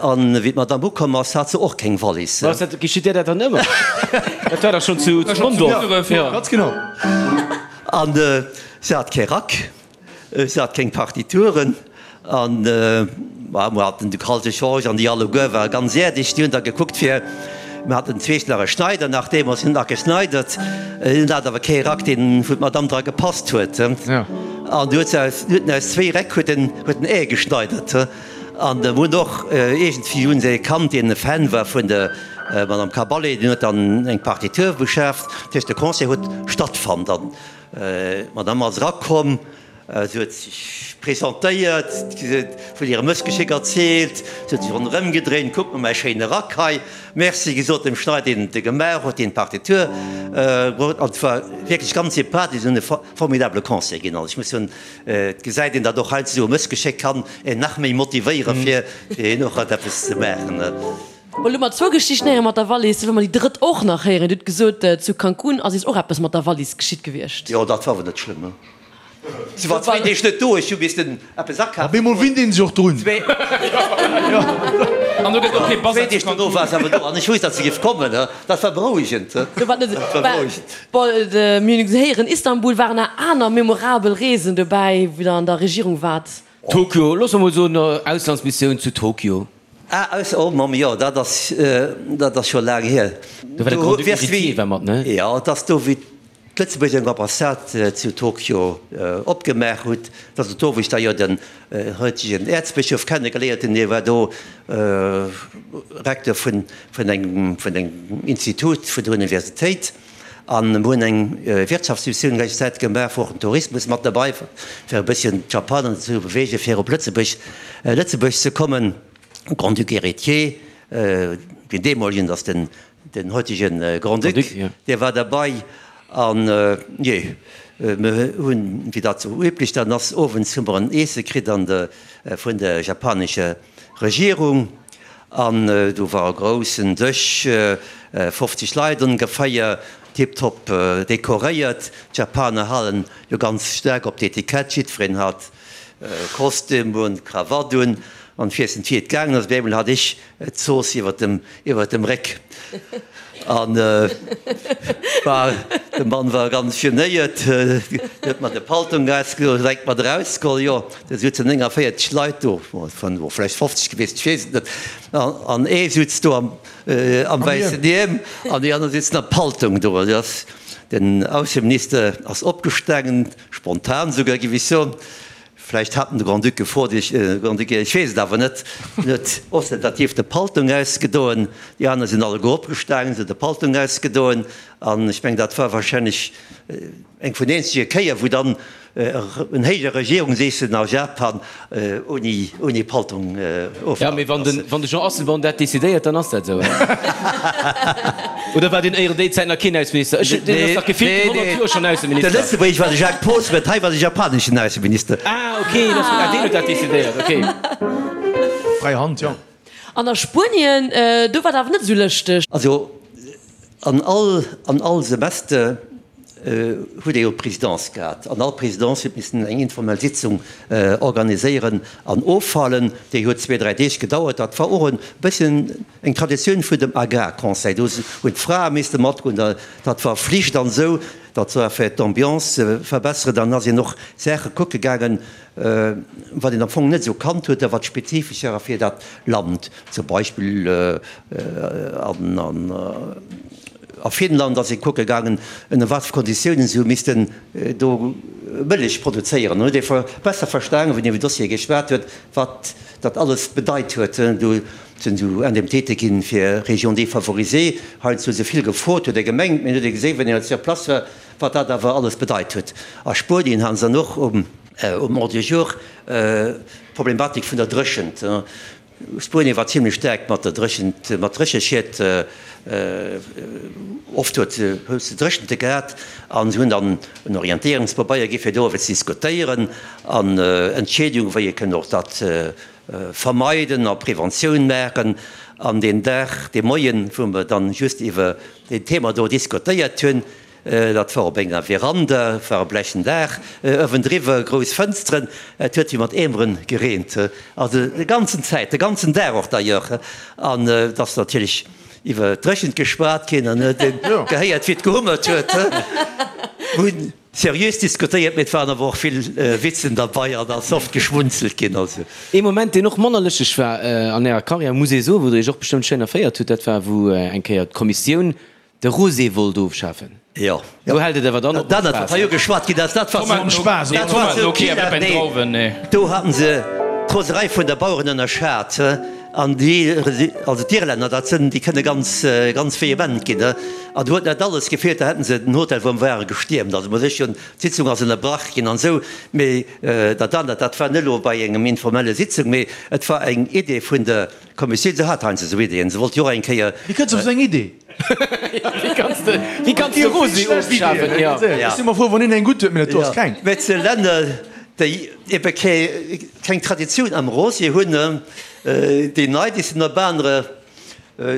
An wéi d'Madame ukomm ass, hat se och keng Wallis. Was, dat geschitt där dat dann ëmmer? Dat war dach schonn zu Mondorf. Jo, ganz genau. An se hat kee Rack. Se hat keng Partituren an ma mer haten de Kalte Georges an déi alleguer ware ganz äerdeg. Déi hunn da gekuckt fir, mer haten zweesch nach e Schneider nach deemools, hunn nach geschneidert, hunn hat awer kee Rack deen wou d'Madame dra gepasst huet. An du huet se aus, huet en aus zwéi Räck huet en huet en ee geschneidert. An mer hunn och iergendwéi hunn se ee kannt deen e Fan war vun der Madame Caballé, deen huet dann eng Partitur beschaaft. Dat heescht de Concert huet stattfonnt an D'Madame ass erakomm, se huet sech presentéiert, se huet vun hirem Mëssgeschéck erzielt, se huet sech ronderëm gedréint, Kuck mol mäi schéine Rack hei, Merci gesot dem Schneider, deen e gemaach huet, deen d'Partitur bruet. An et war wierklech ganz sympathesch an e formidabele Concert ginn. Also ech muss soen, et gesäit een, datt och heiansdo esou e Mëssgeschéck kann een nach méi motivéiere fir fir och eppes ze maachen. Bon, elo hu mer zwou Geschichten héieren mat der Wallis, elo wëlle mer déi drëtt och nach héieren. Dir hutt gesot, zu Cancún ass iech och eppes mat der Wallis geschitt gewiescht. Jo, dat war awer net schlëmm. Si war zwéin Deeg net do, ech hu missten eppes akafen. Op eemol winnt een sech och drun. Zwéin Deeg dono war se awer do an ech wousst, datt se géif kommen. Dat war berouegend. Dat war berouegend. Bon, mir hunn héieren, Istanbul. Waren nach aner memorabel Reesen dobäi, wou Der an der Regierung waart? Tokio, loosse mer mol soen, Auslandsmissioun zu Tokio. Ah, aus, oh Mamm, jo, dat ass, dat ass scho laang hier. Do war de Grand-Duc Héritier war mat, ne? Jo, et ass do, wéi d'Lëtzebuerg eng Ambassade zu Tokio opgemaach huet. Dat ass do, wou ech da jo den heutegen Äerzbëschof kennegeléiert hunn. Hie war do Recteur vun, vun engem, vun engem Institut vun der Universitéit. An mir hunn eng Wirtschaftsmissioun eng ganz Zäit gemaach, wou och den Tourismus mat derbei war, fir e bësschen d'Japaner dozou beweegen, fir op Lëtzebuerg, Lëtzebuerg ze kommen. Grand-Duc Héritier, deen deemolegen, dat ass den, den heutege Grand-Duc, dee war derbei. An, jee, mir hunn, wéi dat sou üblech dann ass, owends hu mer en Iesse kritt an de, vun der japanescher Regierung. An do war e groussen Dësch, 50 Leit ongeféier, tiptop dekoréiert. D'Japaner halen jo ganz staark op d'Etikett, jiddwereen hat Kostüm un, Krawatt un. An ech weess net wéi et gaangen ass, op eemol hat ech d'Zooss iwwer dem, iwwer dem Réck. An war, de Mann war ganz genéiert, huet mer de Paltong ausgeholl, direkt mat erausgeholl, jo. Do sutzen 49 Leit do, bon, vläicht 50 gewiescht, ech weess et net, an ee sutz do am wäissen Hiem an déi aner sitzen am Paltong do. Den Ausseminister ass opgestaangen, spontan souguer, géif ech soen. Vläicht hat en de Grand-Duc gefrot, ech, Grand-Duc, ech weess et awer net. En huet ostentativ de Paltong ausgedoen, déi aner sinn alleguer opgestaangen, se huet de Paltong ausgedoen an ech mengen, dat war wahrscheinlech eng vun eenzege Kéier, wou dann En héije Regierungseessen a Japan ouni Paltong ofgehalten. Jo, mee wann de Jean Asselborn dat decidéiert, dann ass dat esou, hein? Oder war deen éieren déi Zäit nach keen Ausseminister? Ech, deen ass dach gefillt 100 Joer schonn Ausseminister. De Lëtzebuergesch war de Jacques Poos, mä hei war de japaneschen Ausseminister. Ah, okay, ah, deen huet dat decidéiert, okay. Fräi Hand, jo. An a Spuenien, do war et awer net esou lëschteg. Also an all, an all Semester huet ee jo d'Presidence gehat. An all Presidence huet missen eng informell Sitzung organiséieren an ofhalen. Déi huet zwee, dräi Deeg gedauert. Dat war och e bësschen eng Traditioun vun dem Agrarconseil. Do hunn d'Frae misste matgoen, dat war Flicht an esou. Dat war fir d'Ambiance ze verbesseren. Dann ass een och Saache kucke gaangen, wat een am Fong net esou kannt huet a wat spezifesch war fir dat Land. Zum Beispill a Finnland ass ee kucke gaangen, ënner wat fir Konditiounen se hu missten do Mëllech produzéieren. Dann huet ee besser verstanen, wéi een iwwer Dossiere geschwat huet, wat dat alles bedeit huet. Do sinn esou Indemnitéite ginn fir Régions défavorisées. Heiansdo hu se vill gefrot, huet ee gemengt, mee dann huet ee gesinn, wéi een sur place war, wat dat awer alles bedeit huet. A Spuenien hate se dann och um. Um Ordre du jour, d'Problematik vun der Dréchent. Spuenie war zimlech staark mat der Dréchent, mat Drécheschied. Oft huet se Dréchente gehat an se hunn dann en Orientéierungspabeier gi fir doriwwer ze diskutéieren an Entscheedunge wéi ee kënnt och dat vermeiden a Preventioun maachen. An deen Dag, dee Moien, wou mer dann just iwwer deen Thema do diskutéiert hunn, Dat war op enger Veranda, et war e blechen Daach uewendriwwer, grouss Fënsteren, et huet wéi mat Eemeren gereent, also de ganzen Zäit, de ganzen Dag och d'ailleurs. An et ass natierlech iwwer d'Dréchent geschwat ginn an huet een gehéiert, wéi et gehummert huet. Mir hunn seriös diskutéiert, mee et waren awer och vill Witzen derbei an ass oft geschmunzelt ginn. Also. Ee Moment, deen och manner lëschteg war an Ärer Karriär, muss ee soen, wou Der Iech och bestëmmt schéin erféiert hutt, dat war, wou eng Kéier d'Kommissioun De Rosé wollt ofschafen. Jo. Do hält et awer dann op mat Spaass. Wat hei ugeschwat ginn ass, dat war sou, nee, do haten se d'Roserei vun der Baueren ënnerschat. An déi, also d'Irlänner, dat sënn, déi kënne ganz, ganz vehement ginn. An do huet net alles gefeelt, da hätten se den Hotel wou mer ware gestiermt. Also muss ech hunn, d'Sitzung ass ënnerbrach ginn an esou. Mee dat anert, dat war net elo bei engem informelle Sitzung, mee et war eng Idee vun der Kommissioun. Se hat heiansdo esou Ideeën. Se wollt jo och eng Kéier. Wéi kënns de op esou eng Idee? Wéi kanns de, wéi kanns de Rosé ofschafen? Jo. Ech si mer frou, wann een eng gutt huet, mee dat do ass keng. Mä zu Länner, déi ebe keng Traditioun am Rosé hunn, déi nei, déi sinn op anere,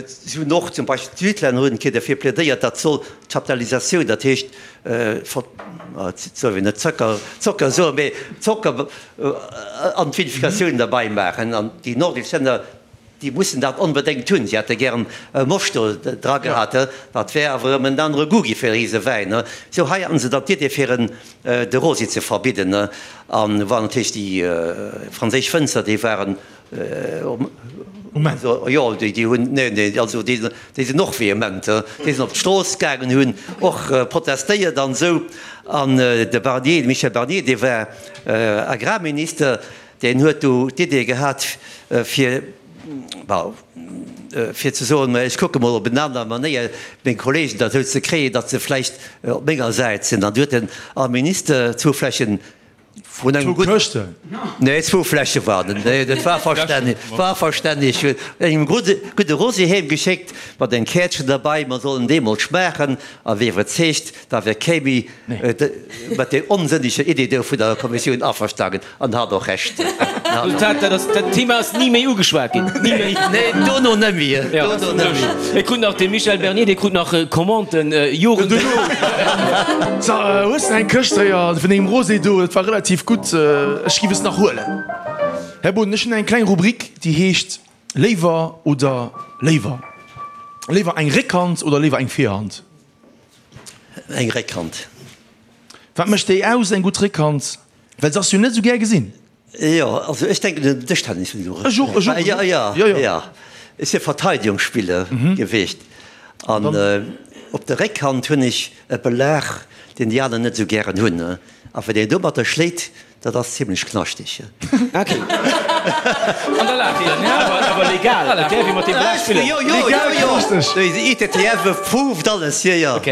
si hunn och zum Beispill d'Südlänner hunn eng Kéier derfir plädéiert, dat soll d'Chaptalisatioun, dat heescht, et soll een net Zocker, Zocker soen, mee Zocker an d'Vinificatioun derbei maachen. An déi nordesch Länner, Déi mussen dat onbedéngt hunn. Si hätte gären e Moscht do dra gehat, dat wär awer erëm en anere Goût gi fir ise Wäin. Sou, hei haten se dann d'Idee fir en de Rosé ze verbidden. An war natierlech déi franséisch Wënzer, déi waren, jo, déi hunn, nee, nee, also déi sinn och vehement, déi sinn op d'Strooss gaangen, hunn och protestéiert an esou. An de Barnier, de Michel Barnier, dee war Agrarminister, Deen huet du d'Idee gehat, fir, bon, fir ze soen, ech kucke mol op en aner Manéier meng Kollegen derzou ze kréien, datt se vläicht op menger Säit sinn. An du huet en all Minister zwou Fläschen vun engem gudden. Zwou Këschten? Nee, zwou Fläsche waren et. Nee, dat war verstänneg, war verstänneg. Huet engem gudde Rosé heem geschéckt, mat engem Käertchen derbei, mer sollen dee mol schmaachen a wier iwwerzeegt, da wär kee méi mat där onsënneger Idee do vun der Kommissioun averstanen. An hat och Recht. Resultat, dat ass, dat Thema ass ni méi ugeschwat ginn. Ni méi. Nee, dono net méi. Dono net méi. Et krut nach de Michel Bernier, dee krut nach Commanden Joren duerno. So, hues de eng Këscht héier vun dengem Rosé do? Dat war relativ gutt. Ech giff es nach huelen. Här Boden, ech hunn eng kleng Rubrik, déi heescht Léiwer oder léiwer. Léiwer eng Réckhand oder léiwer eng Virhand? Eng Réckhand. Wat mécht déi aus, eng gutt Réckhand? Well se ass jo net esou gär gesinn. Jo, also ech denken un den Dëschtennis. Ech och, ech och. Jo, jo, jo, jo. Ech si Verteidigungsspiller gewiescht an op der Réckhand hunn ech e Belag, deen déi aner net esou gären hunn. A wann een domatter schléit, dat ass zimlech knaschteg. Ok. An da laacht een. Awer legal, et däerf ee mat deem Belag spillen. Jo, jo, jo, jo. De ITTF approved alles, jo, jo. Ok.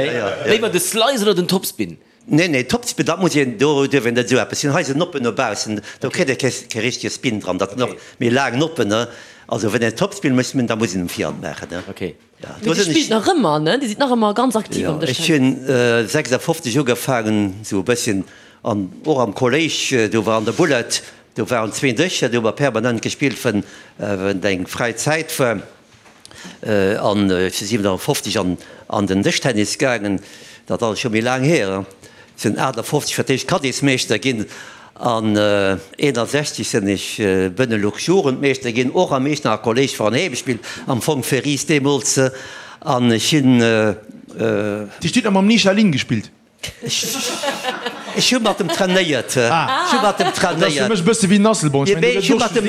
Léiwer de Slice oder den Topspin? Nee, nee, Topspin, dat muss een, do duerf een net esou eppes hunn. Hei sinn Noppen no baussen, do kritt ee kee richtege Spin dran. Dat sinn och méi laang Noppen, ne. Also wann een Topspin muss hunn, da muss een um Virhand maachen, ne. Okay. Ja, do sinn ech. Dir spillt nach ëmmer, ne? Dir sidd nach ëmmer ganz aktiv am Dëschtennis. Jo, ech hunn 56 ugefaangen, esou e bësschen, an och am Kolléisch, do war an der Bullet, do waren zwee Dëscher, do hu mer permanent gespillt, wann eng fräi Zäit war. An ech si 57 an an den Dëschtennis gaangen, dat ass scho méi laang hier. Ech sinn 58 fir d'éischt Caddiesmeeschter ginn an 61 sinn ech Benelux-Jugendmeeschter ginn, och am Eechternacher Kolléisch war en Heemspill, am Fong fir Ris deemools. An ech hunn. Dir hutt nach mam Nisha Lin gespillt? Ech hu mat em trainéiert. Ech hu mat em trainéiert. Dat ass fir mech e bësse wéi Nasselborn. Ech mengen, do gëtt et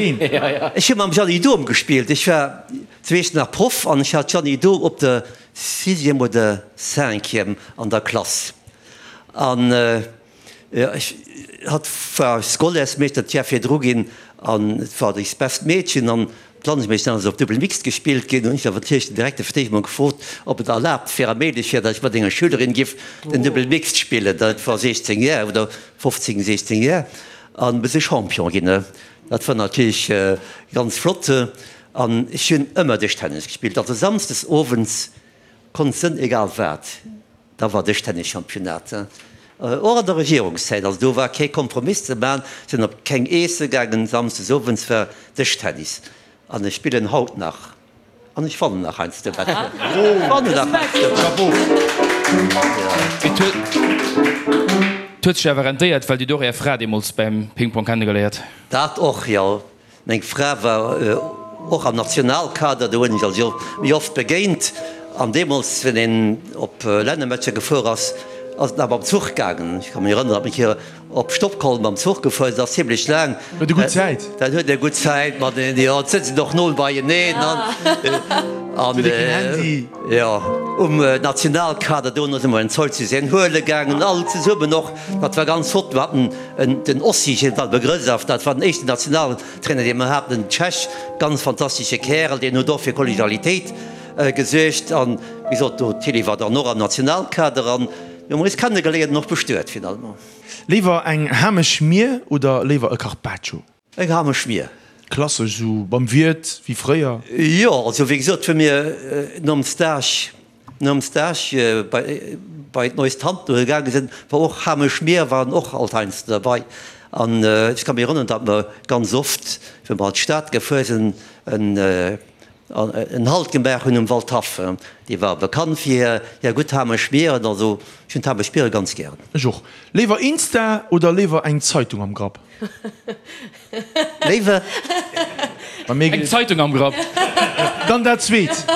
och. Ech hu mam Jeanny Dohm gespillt. Ech war zu Iechternach Proff an ech hat d'Jeanny Dohm op der Sixième oder Cinquième an der Klass. An ech, hatt war Scolaires-Meeschter d'Jar virdru ginn an et war eist best Meedchen. An D'Landesmeeschter ass op Double Mixed gespillt ginn. Hunn ech awer natierlech den Direkter fir d'éischt mol gefrot, ob et erlaabt wär a méiglech wär, datt ech mat enger Schülerin giff den Double Mixed spillen. Dat war 16 Jar oder 15, 16 Jar. An mir si Champion ginn. Dat war natierlech ganz flott. An ech hunn ëmmer Dëschtennis gespillt. Also samsdes owends konnt sënn egal wat, da war Dëschtennis-Championnat. Och an der Regierungszäit. Also do war kee Kompromiss ze man, sinn op keng Eesse gaangen, samsdes owends war Dëschtennis. An ech spillen haut nach. An ech wannen nach heiansdo wat. Wannen nach heiansdo. Chapeau! Et huet sech awer rentéiert, well Dir hutt och Är Fra deemools beim Ping-Pong kennegeléiert. Dat och, jo. Meng Fra war och am Nationalkader, do hunn ech also méi oft begéint. An deemools, wenn een op Lännermatcher gefuer ass, ass et nach mam Zuch gaangen. Ech ka mech erënneren, datt mir hier Op Stockholm mam Zuch gefuer, dat ass zimlech laang. Huet e gutt Zäit. Dat huet e gutt Zäit mat en, jo, et sëtzen och no beieneen an, an, Huet e keen Handy. Jo, um Nationalkader dono si mer en Zeug zu sehen huele gaangen, all zesummen och. Dat war ganz flott. Mir haten en, den Ossi Jean-Dalbegrësaf, dat war den éischten Nationaltrainer, dee mer haten, en Tschech, ganz fantastesche Kärel, deen huet och fir Kollegialitéit gesuergt. An, wéi gesot, do Tilly war dann och am Nationalkader an, Mir hunn eis kennegeléiert an och bestuet finalement. Léiwer eng Hameschmier oder léiwer e Carpaccio? Eng Hameschmier. Klassesch, esou beim Wiert wéi fréier? Jo, also wéi gesot, wéi mir nom Stage, nom Stage bei, bei d'Neues Tante gaange sinn, war och Hameschmier waren och alt heiansdo derbei. An ech ka mech erënneren, datt mer ganz oft, wéi mer an d'Stad gefuer sinn, en, En Halt gemaach hunn um Waldhaff. Déi war bekannt fir hir gutt Hameschmieren. Also ech hunn d'Hameschmiere ganz gären. Ech och. Léiwer Insta oder léiwer eng Zeitung am Grapp? Léiwer. Eng Zeitung am Grapp. Dann dat zweet.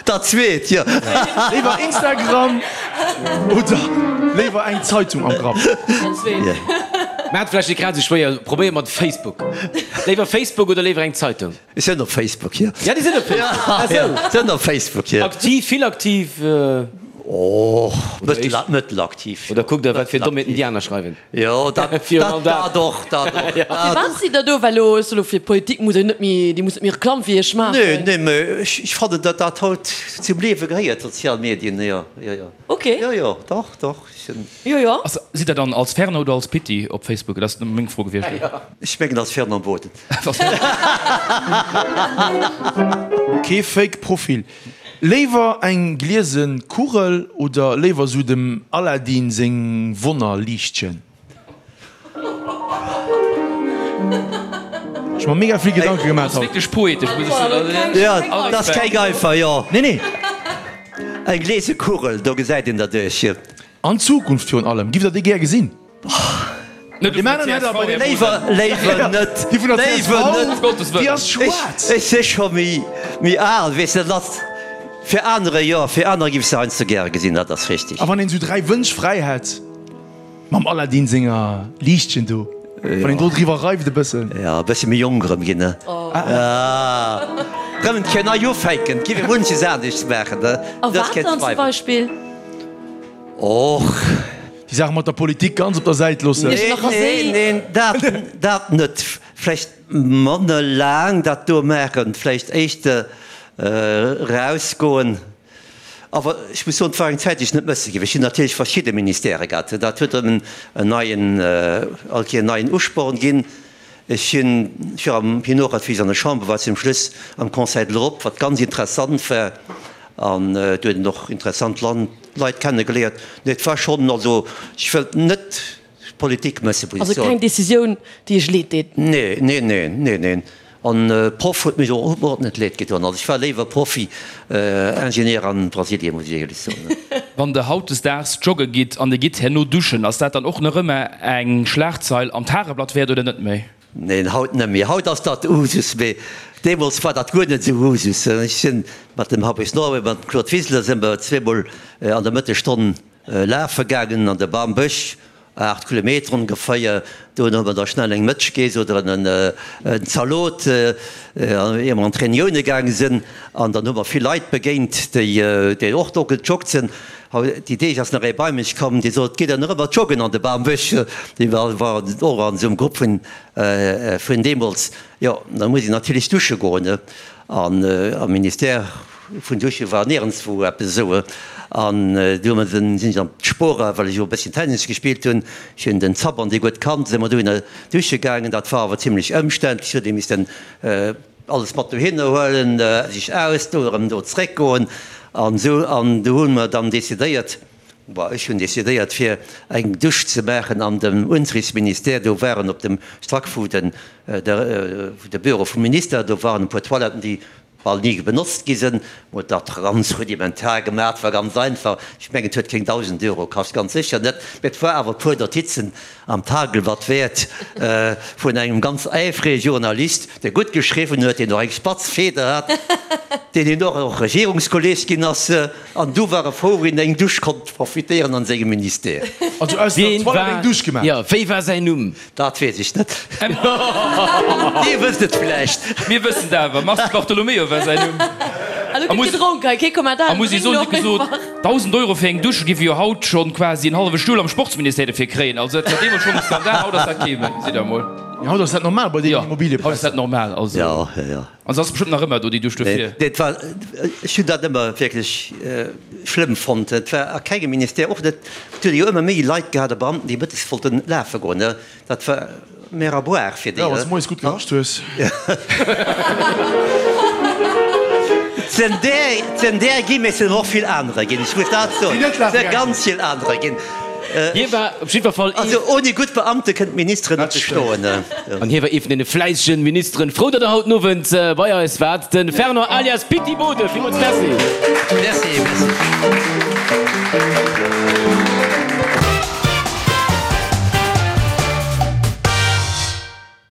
Dat zweet, jo. Léiwer Instagram oder léiwer eng Zeitung am Grapp? Dat zweet. Mä et vläicht net grad esou schwéier. Probéier mat Facebook. Léiwer Facebook oder léiwer eng Zeitung? Ech sinn op Facebook, jo. Ja, déi sinn op Facebook. Ah sou. Ja, sinn op Facebook, jo. Aktiv, vill aktiv? Oh, mëttelaktiv. Oder kuckt der, wat fir Dommheeten déi aner schreiwen? Jo, dat, dat, dat och, dat och. Firwat sidd der do? Well elo, ech soe lo, fir Politik muss een net méi, Dir musst net méi Reklamm fir Iech maachen. Nee, nee, mä ech, ech fannen, datt dat haut zum Liewe gehéiert, d'sozial Medien, jo, jo, jo. Ok. Jo, jo, dach, dach, ech sinn. Jo, jo. Sidd der dann als Fernand oder als Pitti op Facebook? Dat ass meng Fro gewiescht. Ech mengen als Fernand Boden. Kee Fake Profil. Léiwer eng gliese Kugel oder léiwer sou dem Aladdin seng Wonnerliichtchen? Ech mer mega vill Gedanke gemaach haut. Wierklech poetesch muss ech soen. Jo, dat ass keng einfach, jo. Nee, nee. Eng gliese Kugel, do gesäit een derduerch. An Zukunft virun allem. Giff der déi gär gesinn? Léiwer, léiwer net. Déi vun der csv, Léiwer net. déi ass schwaarz. Ech si scho méi, méi al, weess de, dat ass fir anerer, jo, fir anerer giff ech se heiansdo gäre gesinn, dat ass richtig. A wann een esou 3 Wënsch fräi hätt, mam Aladdin senger Liichtchen do, wann een do driwwer reift e bëssen. Jo, e bësse méi jonk erëm ginn, ne? Rëm eng Kéier nei ufänken, et giff ee munches anescht maachen, ne? A wat dann zum Beispill? Och. Déi Saach mat der Politik ganz op der Säit loossen. Neen, neen, neen, dat, dat net. Vläicht manner laang dat do maachen, vläicht éischter erausgoen. Awer ech muss soen, et war eng Zäit, déi ech net mësse géif. Ech hunn natierlech verschidde Ministèrë gehat. Dat huet erëm en neien, all Kéier en neien Usporn ginn. Ech hunn, ech war am, hien och, wéi ech an der Chamber war, zum Schluss am Conseil de l'Europe, wat ganz interessant war, an do huet een och interessant Leit kennegeléiert. Nee, et war schonn, also ech wëllt net Politik mëssen, muss ech Also soen. keng Decisioun, déi Iech leed deet? Nee, nee, nee, nee, neen. An Proff huet mech och och net leed gedoen. Also ech war léiwer Profi, Ingenieur an Brasilien, muss ech éierlech soen. Wann der hautdesdaags jogge gitt an dir gitt herno duschen, ass dat dann och nach ëmmer eng Schlagzeil am Tageblatt wäert oder net méi? Neen, haut net méi. Haut ass dat Usus, mee deemools war dat guer net esou Usus. Ech sinn mat dem Fabrice Norway, mat dem Claude Wiseler si mer zweemol an der Mëttesstonn lafe gaangen an de Bambësch, 8 Kilometer ongeféier. Do hu mer da schnell eng Mëtsch geess oder en Zalot, ier mer an d'Reunioune gaange sinn. An dann hu mer vill Leit begéint, déi och do gejoggt sinn. Déi Deeg ass nach ee bei mech komm, dee sot, Gitt Der nach ëmmer joggen an de Bambësch? Dee war och an esou engem Grupp vun deemools. Jo, da muss een natierlech dusche goen. An am Ministère. Vun Dusche war nierenswou eppes esou. An du hu mer sinn ech an d'Spora, well ech och e bësschen Tennis gespillt hunn. Ech hunn den Zapp an dee gutt kannt, si mer dohinner dusche gaangen. Dat war awer zimlech ëmständlech, huet ee missten alles mat dohinner huelen, sech ausdoen, erëm do zréckgoen an esou. An du hu mer dann decidéiert, bon, ech hunn decidéiert, fir eng Dusch ze maachen an dem Unterrichtsministère. Do waren op dem Stack vu den, de Büro vum Minister, do waren e puer Toiletten, déi bal ni benotzt gi sinn, huet dat ganz rudimentar gemaach, war ganz einfach, ech mengen et huet keng 1.000 Euro kascht, ganz sécher net, mä et war awer e puer Notizen am Tageblatt wäert vun engem ganz äifrege Journalist, dee gutt geschriwwen huet, deen och eng spatz Feder hat, deen hien och och Regierungskolleg ginn ass, an du war e frou, wéi en eng Dusch konnt profitéieren an sengem Ministère. Also aus der Toilette eng Dusch gemaach? Jo, wéi war säin Numm? Dat weess ech net. Dir wësst et vläicht. Mir wëssen et awer. Mars Di Bartolomeo war säin Numm. A lo gëtt gedronk hei, kee Kommentar. A muss ee soen, wéi gesot, 1.000 Euro fir eng Dusch géif ee jo haut schonn quasi en hallwe Stull am Sportsministère dofir kréien. Also dat war deemools schonn e Skandal, haut ass dat kee méi, gesitt Der emol. Jo, haut ass dat normal bei deenen Immobiliëpräisser. Jo, haut ass dat normal. Also. Jo, jo, jo. An se ass bestëmmt nach ëmmer do, déi Dusch dofir. Nee, et war, ech hunn dat ëmmer wierklech schlëmm fonnt. Et war a kengem Ministère, och net, et huet ee jo ëmmer méi Leit gehat a Beamten, déi mëttes wollten lafe goen, ne. Dat war mer à boire fir déi. Jo, wann s de moies gutt gerascht hues. Et sinn där, et sinn där ginn, mee et sinn och vill anerer ginn, ech muss dat soen. Déi net Et lafe si gaange ganz sinn. vill anerer ginn. Hie war op jiddwer Fall ee. Also ouni gutt Beamte kënnen d'Ministeren net bestoen. An hie war ee vun deene fläissegen Ministeren. Frou, datt Der haut den Owend bei eis waart, de Fernand alias Pitti Bode. Villmools Merci. Merci, merci.